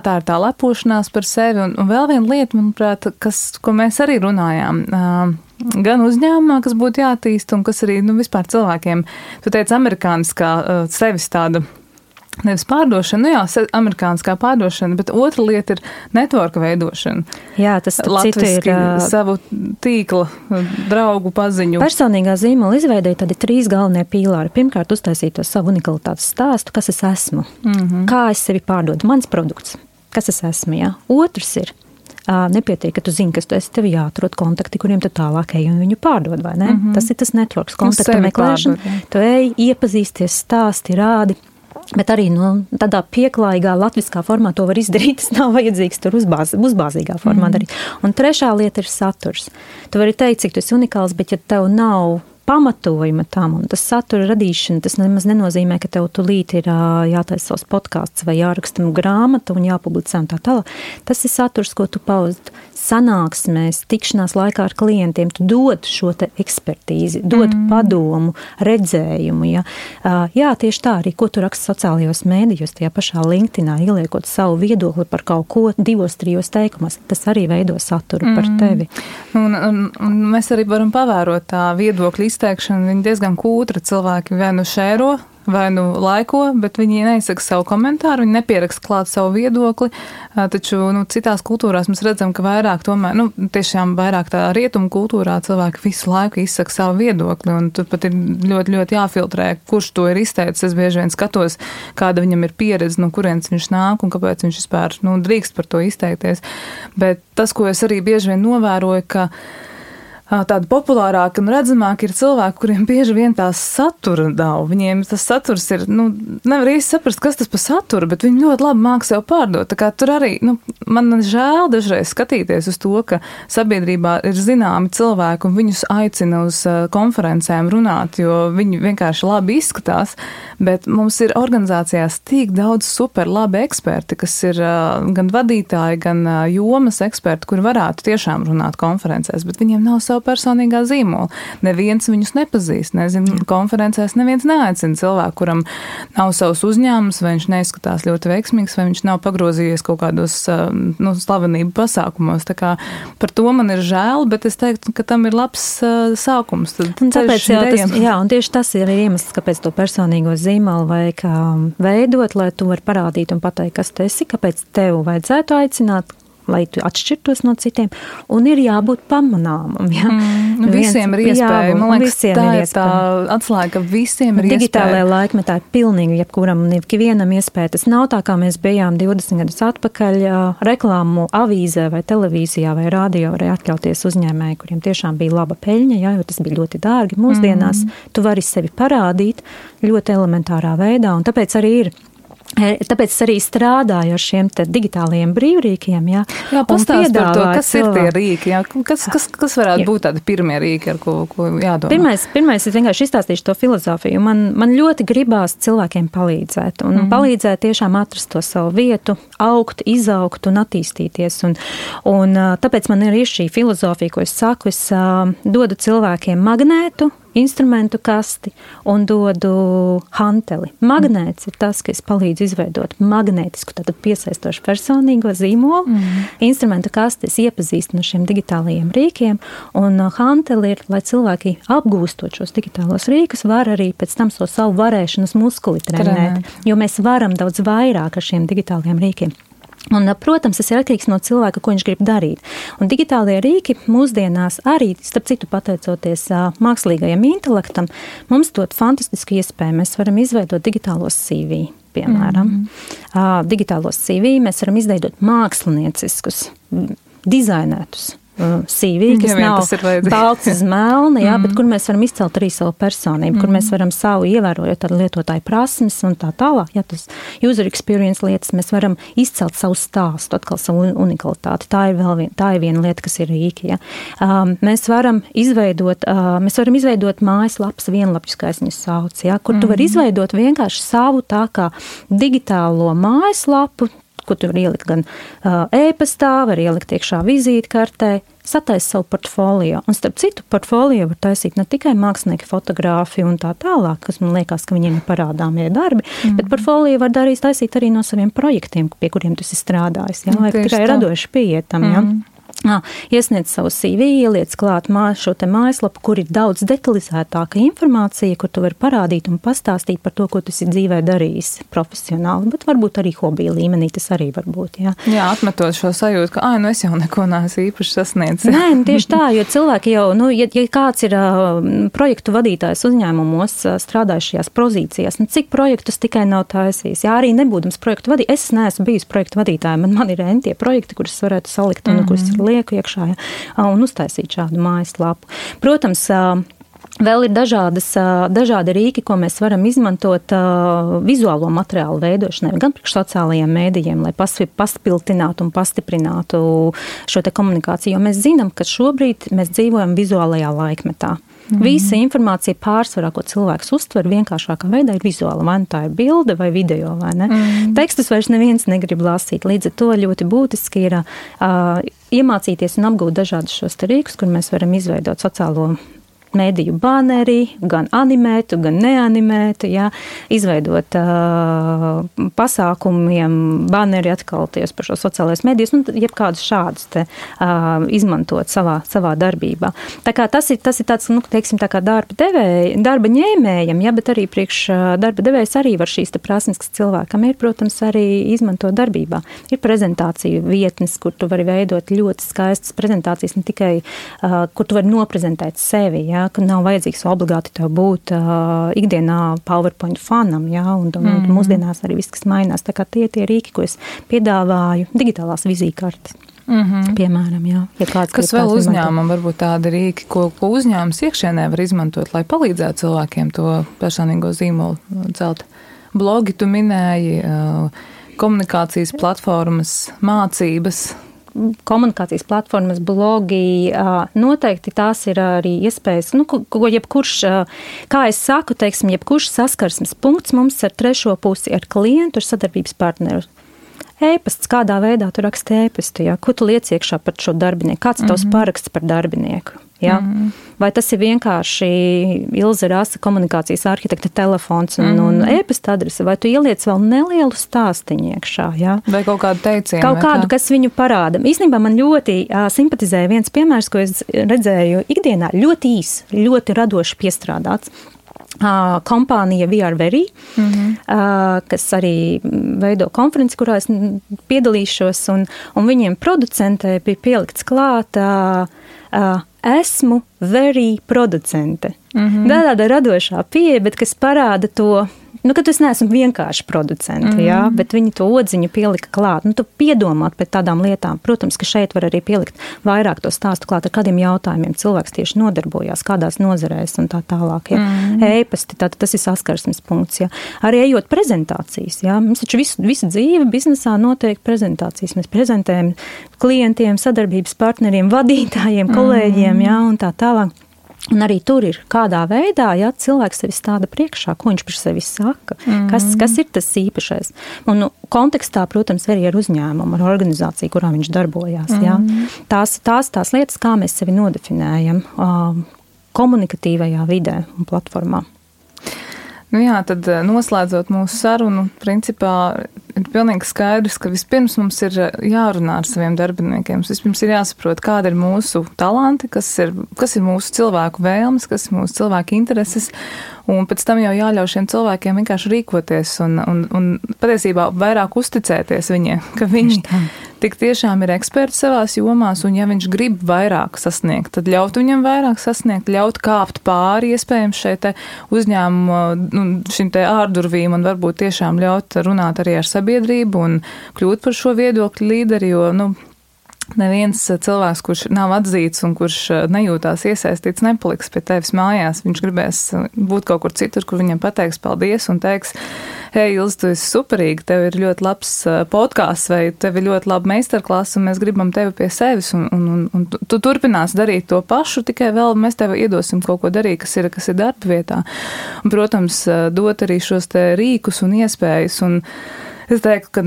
tā ir tā lepošanās par sevi. Un vēl viena lieta, manuprāt, ko mēs arī runājām, gan uzņēmumā, kas būtu jātīst, un kas arī vispār cilvēkiem, tu teici, amerikāniskā sevis tāda, nevis pārdošana, amerikāniskā pārdošana, bet otra lieta ir networka veidošana. Jā, tas latviski savu tīkla, draugu paziņu. Personīgā zīmola izveidēja tādi 3 galvenie pīlāri. Pirmkārt, uztaisīt to savu unikalitātes stāstu, kas es esmu, kā es sevi pārdodu, mans produkts, kas es esmu, jā. Otrs ir, nepietiek, ka tu zini, kas tu esi, tev jāatrod kontakti, kuriem tu tālāk ej un viņu pārdod, vai ne? Tas ir tas networks, kontakta meklēšana. Tu ej, iepazīsties, stāsti, rādi. Bet arī tādā pieklājīgā latviskā formā to var izdarīt, tas nav vajadzīgs tur uzbāzīgā formā darīt. Un trešā lieta ir saturs. Tu vari teikt, cik tu esi unikāls, bet ja tev nav pamatojuma tam, un tas satura radīšana, tas nemaz nenozīmē, ka tev tulīt ir jātaisa savs podkāsts vai jāraksta grāmata un jāpublicē un tā tālāk. Tas ir saturs, ko tu paust sanāksmēs, tikšanās laikā ar klientiem, tu dod šo te ekspertīzi, dod padomu, redzējumu. Ja? Jā, tieši tā arī, ko tu raksti sociālajos mēdījos, tajā pašā LinkedInā, ieliekot savu viedokli par kaut ko 2-3 teikumos, tas arī veido saturu par tevi. Un mēs arī varam pavērot tā viedokļa izteikšanu, viņi diezgan kūtra cilvēki vai šēro, vai laiko, bet viņi neizsaka savu komentāru, viņi nepieraksta klāt savu viedokli, taču citās kultūrās mēs redzam, ka vairāk tomēr, tiešām vairāk tā rietumu kultūrā cilvēki visu laiku izsaka savu viedokli, un tur pat ir ļoti, ļoti jāfiltrē, kurš to ir izteicis. Es bieži vien skatos, kāda viņam ir pieredze, no kurienes viņš nāk un kāpēc viņš vispār drīkst par to izteikties. Bet tas, ko es arī bieži vien novēroju, ka tādi populārāki un redzamāki ir cilvēki, kuriem bieži vien tās satura nav. Viņiem tas saturs ir, nevar īsti saprast, kas tas par saturu, bet viņi ļoti labi māk sev pārdot. Tā kā tur arī, man žēl dažreiz skatīties uz to, ka sabiedrībā ir zināmi cilvēki un viņus aicina uz konferencēm runāt, jo viņi vienkārši labi izskatās, bet mums ir organizācijās tik daudz super labi eksperti, kas ir gan vadītāji, gan jomas eksperti, kuri varētu tiešām runāt konferencēs, bet viņiem nav savu personīgā zīmola. Neviens viņus nepazīst, nezinu, konferencēs neviens neaicina cilvēku, kuram nav savs uzņēmums, vai viņš neizskatās ļoti veiksmīgs, vai viņš nav pagrozījies kaut kādos slavenību pasākumos. Tā kā par to man ir žēl, bet es teiktu, ka tam ir labs sākums. Tāpēc un tieši tas ir iemesls, kāpēc to personīgo zīmolu vajag veidot, lai tu vari parādīt un pateikt, kas tu esi, kāpēc tev vajadzētu aicināt lai tu atšķirtos no citiem, un ir jābūt pamanāmam. Ja? Visiem ir iespēja. Man liekas, tā ir tā atslēga, ka visiem ir digitālajā laikmetā ir pilnīgi jebkuram un ikvienam iespēja. Tas nav tā, kā mēs bijām 20 gadus atpakaļ reklāmu avīzē vai televīzijā vai radio varēja atļauties uzņēmēji, kuriem tiešām bija laba peļņa, ja, jo tas bija ļoti dārgi. Mūsdienās tu vari sevi parādīt ļoti elementārā veidā, un tāpēc arī strādāju ar šiem te digitālajiem brīvrīkiem. Jā, pastāst par to, kas ir tie rīki, jā? Kas varētu būt tādi pirmie rīki, ar ko jādomā? Pirmais es vienkārši izstāstīšu to filozofiju. Man ļoti gribās cilvēkiem palīdzēt, un palīdzēt tiešām atrast to savu vietu, augt, izaugt un attīstīties. Un tāpēc man ir šī filozofija, ko es saku, es dodu cilvēkiem magnētu, instrumentu kasti un dodu hanteli. Magnēts ir tas, kas palīdz izveidot magnētisku, tātad piesaistošu personīgo zīmolu. Instrumentu kasti es iepazīstu no šiem digitālajiem rīkiem, un hanteli ir, lai cilvēki apgūstot šos digitālos rīkus, var arī pēc tam savu varēšanas muskuli trenēt, jo mēs varam daudz vairāk ar šiem digitālajiem rīkiem. Un, protams, tas ir atkarīgs no cilvēka, ko viņš grib darīt. Un digitālie rīki mūsdienās arī, starp citu pateicoties mākslīgajam intelektam, mums dod fantastisku iespēju. Mēs varam izveidot digitālos CV, piemēram. Digitālos CV mēs varam izveidot mākslinieciskus, dizainētus CV, kas nav balts uz melna, jā, bet kur mēs varam izcelt arī savu personību, kur mēs varam savu ievērojot ar lietotāju prasmes un tā tālāk. Jā, tas user experience lietas, mēs varam izcelt savu stāstu, atkal savu unikalitāti. Tā ir viena lieta, kas ir rīki. Jā. Mēs varam izveidot mājaslapas vienlapjus, kā es viņu saucu, jā, kur tu vari izveidot vienkārši savu tā kā digitālo mājaslapu, ko tu var ielikt gan e-pastā, var ielikt iekšā vizītkartē, sataisa savu portfolio. Un starp citu, portfolio var taisīt ne tikai mākslinieki, fotografi un tā tālāk, kas man liekas, ka viņiem ir parādāmie darbi, bet portfolio var taisīt arī no saviem projektiem, pie kuriem tu esi strādājis. Jā, vai tikai radoši pieietam, jā. Iesniedz savu CV, ieliec klāt šo te mājaslapu, kur ir daudz detalizētāka informācija, kur tu vari parādīt un pastāstīt par to, ko tu esi dzīvē darījis profesionāli, bet varbūt arī hobija līmenī tas arī var būt. Jā, atmetot šo sajūtu, ka es jau neko neesmu īpaši sasniedzis. Nē, tieši tā, jo cilvēki jau, ja kāds ir projektu vadītājs uzņēmumos, strādājušajās pozīcijās, cik projektus tikai nav taisījis. Jā, arī nebūdams projektu vadītājs, es neesmu bijis projektu vadītāja, man ir tie projekti, kurus varētu salikt un kurus lieku iekšā un uztaisīt šādu mājaslapu. Protams, vēl ir dažādi rīki, ko mēs varam izmantot vizuālo materiālu veidošanai, gan priekš sociālajiem mēdījiem, lai paspiltinātu un pastiprinātu šo te komunikāciju, jo mēs zinām, ka šobrīd mēs dzīvojam vizuālajā laikmetā. Visa informācija pārsvarā, ko cilvēks uztver vienkāršākā veidā, ir vizuāla. Vai tā ir bilde vai video, vai ne? Tekstus vairs neviens negrib lasīt. Līdz ar to ļoti būtiski ir iemācīties un apgūt dažādus šos rīkus, kur mēs varam izveidot sociālo mediju baneri, gan animētu, gan neanimētu, jā, izveidot pasākumiem baneri atkal tieši par šo sociālais medijas, jebkādus šādus te izmantot savā darbībā. Tā kā tas ir tāds, teiksim, tā kā darba ņēmējam, jā, bet arī priekš darba devējs arī var šīs te prasmes, kas cilvēkam ir, protams, arī izmantot darbībā. Ir prezentāciju vietnes, kur tu vari veidot ļoti skaistas prezentācijas, ne tikai, kur tu vari noprezentēt sevi, jā, ka nav vajadzīgs obligāti tev būt ikdienā PowerPoint fanam, jā, un mūsdienās arī viss, kas mainās. Tā kā tie rīki, ko es piedāvāju, digitālās vizītkartes. Piemēram, jā. Ja kas vēl uzņēmumam varbūt tādi rīki, ko uzņēmums iekšienē var izmantot, lai palīdzētu cilvēkiem to personīgo zīmolu celt? Blogi tu minēji, komunikācijas platformas, mācības. Komunikācijas platformas, blogi, noteikti tās ir arī iespējas, ko jebkurš, kā es saku, teiksim, jebkurš saskarsmes punkts mums ar trešo pusi, ar klientu, ar sadarbības partneru. E-pasts, kādā veidā tu raksti e-pastu, jā? Ko tu liec iekšā par šo darbinieku? Kāds tavs paraksts par darbinieku? Jā? Vai tas ir vienkārši Ilze Rasa komunikācijas arhitekta telefons un e-pasta adrese, vai tu ieliec vēl nelielu stāstiņu iekšā? Jā? Vai kaut kādu teicienu? Kaut kādu, kas viņu parāda. Īstenībā man ļoti simpatizēja viens piemērs, ko es redzēju ikdienā, ļoti īs, ļoti radoši piestrādāts. kompānija VRvery, kas arī veido konferenci, kurā es piedalīšos, un viņiem producentē bija pielikts klāt esmu very producente. Tāda radošā pieeja, bet kas parāda to, ka tu neesmu vienkārši producenti, bet viņi to odziņu pielika klāt. Tu piedomāt pēc tādām lietām. Protams, ka šeit var arī pielikt vairāk to stāstu klāt, ar kādiem jautājumiem cilvēks tieši nodarbojās, kādās nozarēs un tā tālāk. E-pasti, tas ir saskarsmes punkts. Arī ejot prezentācijas. Mums taču visu dzīvi biznesā notiek prezentācijas. Mēs prezentējam klientiem, sadarbības partneriem, vadītājiem, kolēģiem, un tā tālāk. Un arī tur ir kādā veidā, cilvēks sevi stāda priekšā, ko viņš par sevi saka, kas ir tas īpašais. Un kontekstā, protams, arī ar uzņēmumu, ar organizāciju, kurā viņš darbojās. Tās lietas, kā mēs sevi nodefinējam komunikatīvajā vidē un platformā. Tad noslēdzot mūsu sarunu, principā ir pilnīgi skaidrs, ka vispirms mums ir jārunā ar saviem darbiniekiem. Vispirms ir jāsaprot, kāda ir mūsu talanti, kas ir mūsu cilvēku vēlmes, kas ir mūsu cilvēku intereses, un pēc tam jau jāļauj šiem cilvēkiem vienkārši rīkoties un patiesībā vairāk uzticēties viņiem, ka viņi tik tiešām ir eksperti savās jomās, un ja viņš grib vairāk sasniegt, tad ļaut viņam vairāk sasniegt, ļaut kāpt pāri iespējams šeit uzņēmumu, šim te ārdurvīm, un varbūt tiešām ļaut runāt arī ar sabiedrību un kļūt par šo viedokļu līderi, jo, neviens cilvēks, kurš nav atzīts un kurš nejūtās iesaistīts, nepaliks pie tevis mājās. Viņš gribēs būt kaut kur citur, kur viņam pateiks paldies un teiks, hei, Ilze, tu esi superīgi, tev ir ļoti labs podkāsts vai tev ir ļoti laba meistarklasa un mēs gribam tevi pie sevis un tu turpinās darīt to pašu, tikai vēl mēs tev iedosim kaut ko darīt, kas ir darba vietā. Un, protams, dot arī šos te rīkus un iespējas. Un es teiktu, ka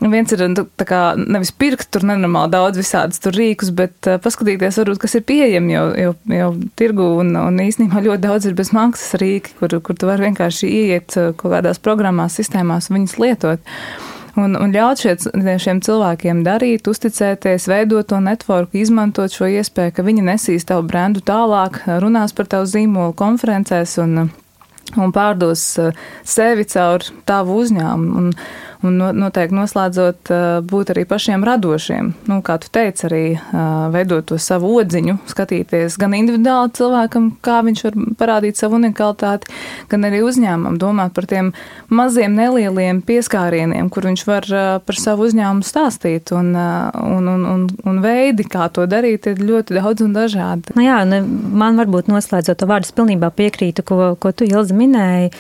viens ir nevis pirkt tur nenormāli daudz visādas tur rīkus, bet paskatīties varbūt, kas ir pieejami jau tirgu un īstenībā ļoti daudz ir bez maksas rīki, kur tu vari vienkārši ieiet kaut kādās programmās, sistēmās un viņas lietot. Un ļaut šiem cilvēkiem darīt, uzticēties, veidot to networku, izmantot šo iespēju, ka viņi nesīs tavu brendu tālāk, runās par tavu zīmolu konferencēs un pārdos sevi caur tavu uzņēmumu. Un noteikti noslēdzot būt arī pašiem radošiem. Kā tu teici, arī veidot to savu odziņu, skatīties gan individuāli cilvēkam, kā viņš var parādīt savu unikalitāti, gan arī uzņēmumam, domāt par tiem maziem nelieliem pieskārieniem, kur viņš var par savu uzņēmumu stāstīt. Un veidi, kā to darīt, ir ļoti daudz un dažādi. Man varbūt noslēdzot to vārdu, es pilnībā piekrītu, ko tu, Ilze, minēji.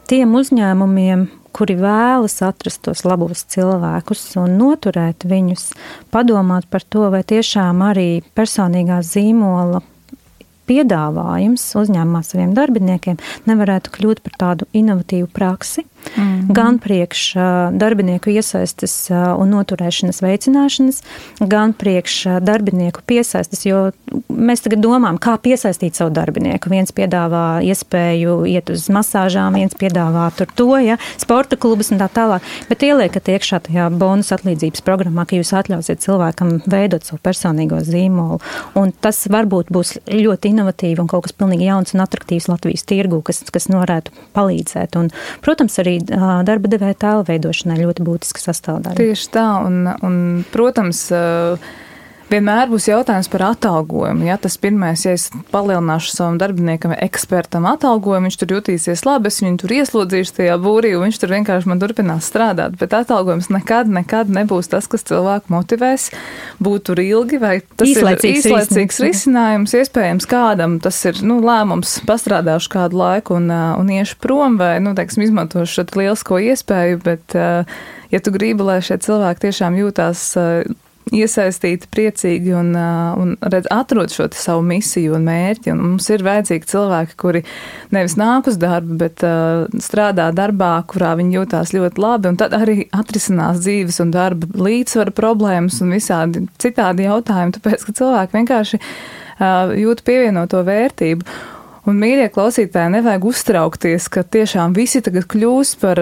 Tiem uzņēmumiem, kuri vēlas atrast tos labos cilvēkus un noturēt viņus, padomāt par to, vai tiešām arī personīgā zīmola piedāvājums uzņēmumā saviem darbiniekiem nevarētu kļūt par tādu inovatīvu praksi, gan priekš darbinieku iesaistes un noturēšanas veicināšanas, gan priekš darbinieku piesaistes, jo mēs tagad domājam, kā piesaistīt savu darbinieku. Viens piedāvā iespēju iet uz masāžām, viens piedāvā sporta klubus un tā tālāk, bet ieliekat iekšā tajā bonus atlīdzības programmā, ka jūs atļausiet cilvēkam veidot savu personīgo zīmolu, un tas varbūt būs ļoti inovatīvi un kaut kas pilnīgi jauns un atraktīvs Latvijas tirgū, kas varētu palīdzēt. Un, protams, arī darba devēja tēla veidošanai ļoti būtiska sastāvdaļa. Tieši tā, un protams, vienmēr būs jautājums par atalgojumu. Tas pirmais, ja es palielināšu savam darbiniekam vai ekspertam atalgojumu, viņš tur jutīsies labi, es viņu tur ieslodzīšu tajā būrī, un viņš tur vienkārši man turpinās strādāt. Bet atalgojums nekad nebūs tas, kas cilvēku motivēs būt tur ilgi, vai tas ir īslaicīgs risinājums. Iespējams, kādam tas ir lēmums, pastrādāšu kādu laiku un iešu prom, vai, izmantošu šo lielisko iespēju, bet ja tu gribi, lai šie cilvēki tiešām jūtās iesaistīti, priecīgi un atrod šo savu misiju un mērķi. Un mums ir vajadzīgi cilvēki, kuri nevis nāk uz darbu, bet strādā darbā, kurā viņi jūtās ļoti labi, un tad arī atrisinās dzīves un darba līdzsvara problēmas un visādi citādi jautājumi, tāpēc, ka cilvēki vienkārši jūt pievienoto vērtību. Un, mīļie klausītāji, nevajag uztraukties, ka tiešām visi tagad kļūs par,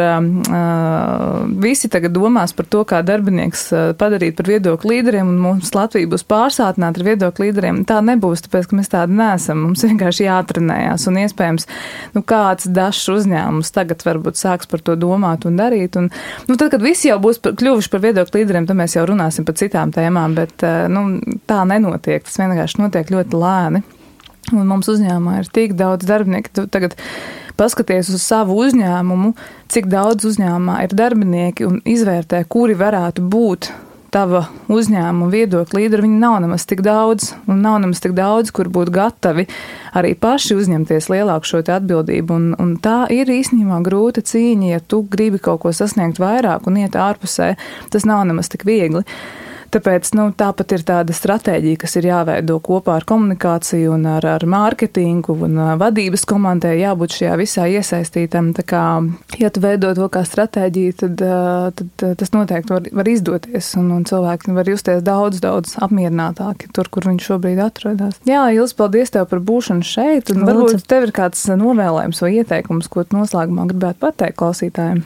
visi tagad domās par to, kā darbinieks padarīt par viedokļu līderiem, un mums Latvija būs pārsātināta ar viedokļu līderiem. Tā nebūs, tāpēc, ka mēs tādi neesam. Mums vienkārši jātrenējās, un iespējams, kāds dažs uzņēmums tagad varbūt sāks par to domāt un darīt. Un, tad, kad visi jau būs kļuvuši par viedokļu līderiem, tad mēs jau runāsim par citām tēmām, bet tā nenotiek. Tas vienkārši notiek ļoti lēni. Un mums uzņēmumā ir tik daudz darbinieku. Tu tagad paskaties uz savu uzņēmumu, cik daudz uzņēmumā ir darbinieki un izvērtē, kuri varētu būt tava uzņēmuma viedokļa līderi. Viņi nav nemaz tik daudz, un nav nemaz tik daudz, kur būtu gatavi arī paši uzņemties lielāku šo te atbildību. Un tā ir īstenībā grūta cīņa, ja tu gribi kaut ko sasniegt vairāk un iet ārpusē. Tas nav nemaz tik viegli. Tāpēc tāpat ir tāda stratēģija, kas ir jāveido kopā ar komunikāciju un ar mārketingu un vadības komandai jābūt šajā visā iesaistītam. Tā kā, ja tu veido to kā stratēģiju, tad tas noteikti var izdoties un cilvēki var justies daudz apmierinātāki tur, kur viņi šobrīd atrodas. Jā, Ilis, paldies tev par būšanu šeit. Un varbūt tev ir kāds novēlējums vai ieteikums, ko tu noslēgumā gribētu pateikt klausītājiem.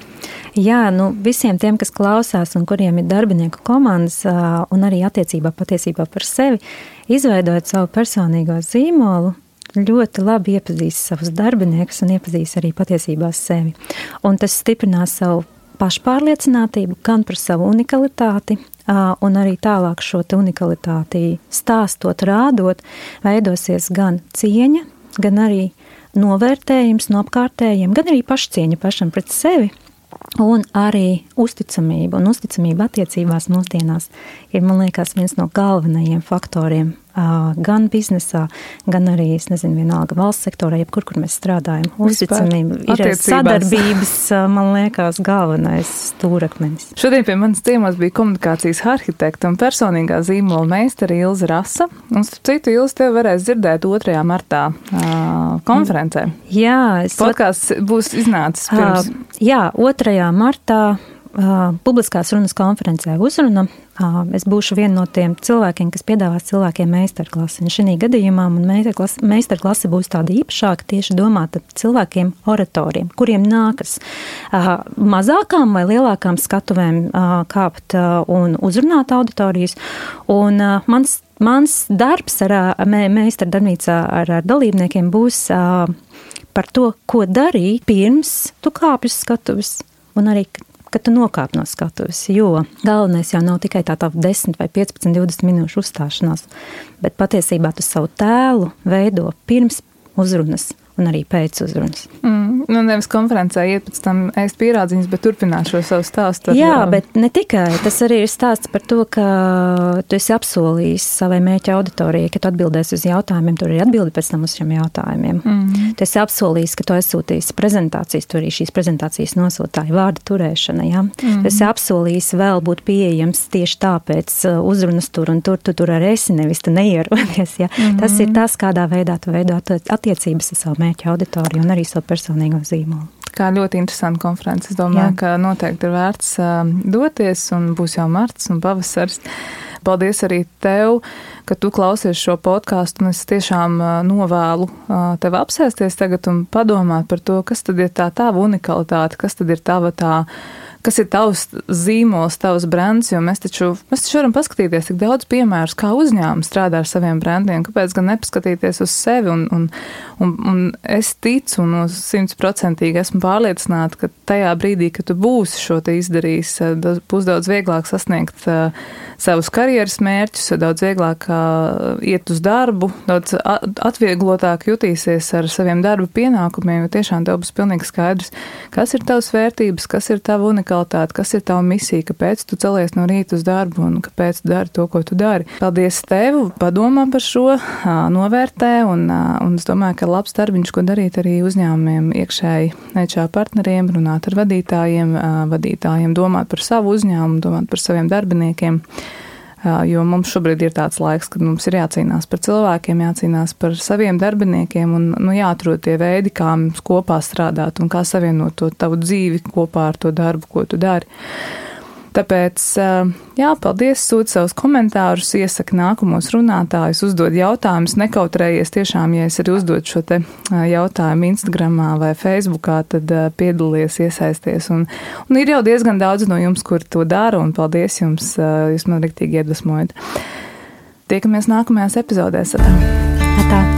Jā, visiem tiem, kas klausās un kuriem ir darbinieku komandas un arī patiesībā par sevi, izveidojot savu personīgo zīmolu, ļoti labi iepazīst savus darbiniekus un iepazīst arī patiesībā sevi. Un tas stiprinās savu pašpārliecinātību, gan par savu unikalitāti, un arī tālāk šo te unikalitāti stāstot, rādot, veidosies gan cieņa, gan arī novērtējums no apkārtējiem, gan arī pašcieņa pašam pret sevi. Un arī uzticamība un uzticamība attiecībās mūsdienās ir, man liekas, viens no galvenajiem faktoriem gan biznesā, gan arī, vienalga valsts sektorā, jebkur, kur mēs strādājam. Uzticamība ir sadarbības, man liekas, galvenais stūrakmenis. Šodien pie manas ciemos bija komunikācijas arhitekta un personīgā zīmola meistara Ilze Rasa. Un starp citu, Ilze, tevi varēs dzirdēt 2. martā konferencē. Jā. Podkāsts būs iznācis pirms. Jā, 2. martā publiskās runas konferencē uzruna. Es būšu viena no tiem cilvēkiem, kas piedāvās cilvēkiem meistarklasi. Un šī gadījumā man meistarklase būs tāda īpašāka, tieši domāta cilvēkiem oratoriem, kuriem nākas mazākām vai lielākām skatuvēm kāpt un uzrunāt auditorijas. Un mans darbs meistardarbnīcā ar dalībniekiem būs par to, ko darīt pirms tu kāpj uz skatuves un arī kad tu nokāp no skatuves, jo galvenais jau nav tikai tā 10 vai 15, 20 minūšu uzstāšanās, bet patiesībā tu savu tēlu veido pirms uzrunas un arī pēc uzrunas. Nevis konferencē iet pēc tam ēst pierādziņas, bet turpināt šo savu stāstu. Jā, bet ne tikai. Tas arī ir stāsts par to, ka tu esi apsolījis savai mērķa auditorijai, ka tu atbildēsi uz jautājumiem, tur ir atbildi pēc tam uz šiem jautājumiem. Tu esi apsolījis, ka tu aizsūtīsi prezentācijas, tu arī šīs prezentācijas nosūtāji vārda turēšana, jā. Tu esi apsolījis vēl būt pieejams tieši tāpēc uzrunas tur un tur arī esi, nevis tu neierodies, jā. Tas ir tas, kādā veidā tu veido attiecības ar savu mērķa auditoriju un arī savu personīgo zīmolu. Kā ļoti interesanta konference. Es domāju, ka noteikti ir vērts doties un būs jau marts un pavasaris. Paldies arī tev, ka tu klausies šo podkāstu, un es tiešām novēlu tev apsēsties tagad un padomāt par to, kas tad ir tā tava unikalitāte, kas tad ir kas ir tavs zīmols, tavs brands, jo mēs taču varam paskatīties tik daudz piemērus, kā uzņēmumi strādā ar saviem brandiem, kāpēc gan nepaskatīties uz sevi, un es ticu un 100% esmu pārliecināta, ka tajā brīdī, kad tu būsi šo te izdarījis, būs daudz vieglāk sasniegt savus karjeras mērķus, daudz vieglāk iet uz darbu, daudz atvieglotāk jutīsies ar saviem darba pienākumiem, jo tiešām tev būs pilnīgi skaidrs, kas ir tavs vērtības, kas ir tava unikalitāte, kas ir tava misija, kāpēc tu celies no rīta uz darbu un kāpēc tu dari to, ko tu dari. Paldies tev, padomā par šo, novērtē, un es domāju, ka labs darbiņš, ko darīt arī uzņēmumiem, iekšēji HR partneriem, runāt ar vadītājiem, domāt par savu uzņēmumu, domāt par saviem darbiniekiem. Jo mums šobrīd ir tāds laiks, kad mums ir jācīnās par cilvēkiem, jācīnās par saviem darbiniekiem un jāatrod tie veidi, kā mums kopā strādāt un kā savienot to tavu dzīvi kopā ar to darbu, ko tu dari. Tāpēc, jā, paldies, sūta savus komentārus, iesaka nākamos runātājus, uzdod jautājumus, nekautrējies tiešām, ja es arī uzdod šo te jautājumu Instagramā vai Facebookā, tad piedalies, iesaisties. Un ir jau diezgan daudz no jums, kur to dara, un paldies jums, jūs man riktīgi iedvesmojat. Tiekamies nākamajās epizodēs. Atā.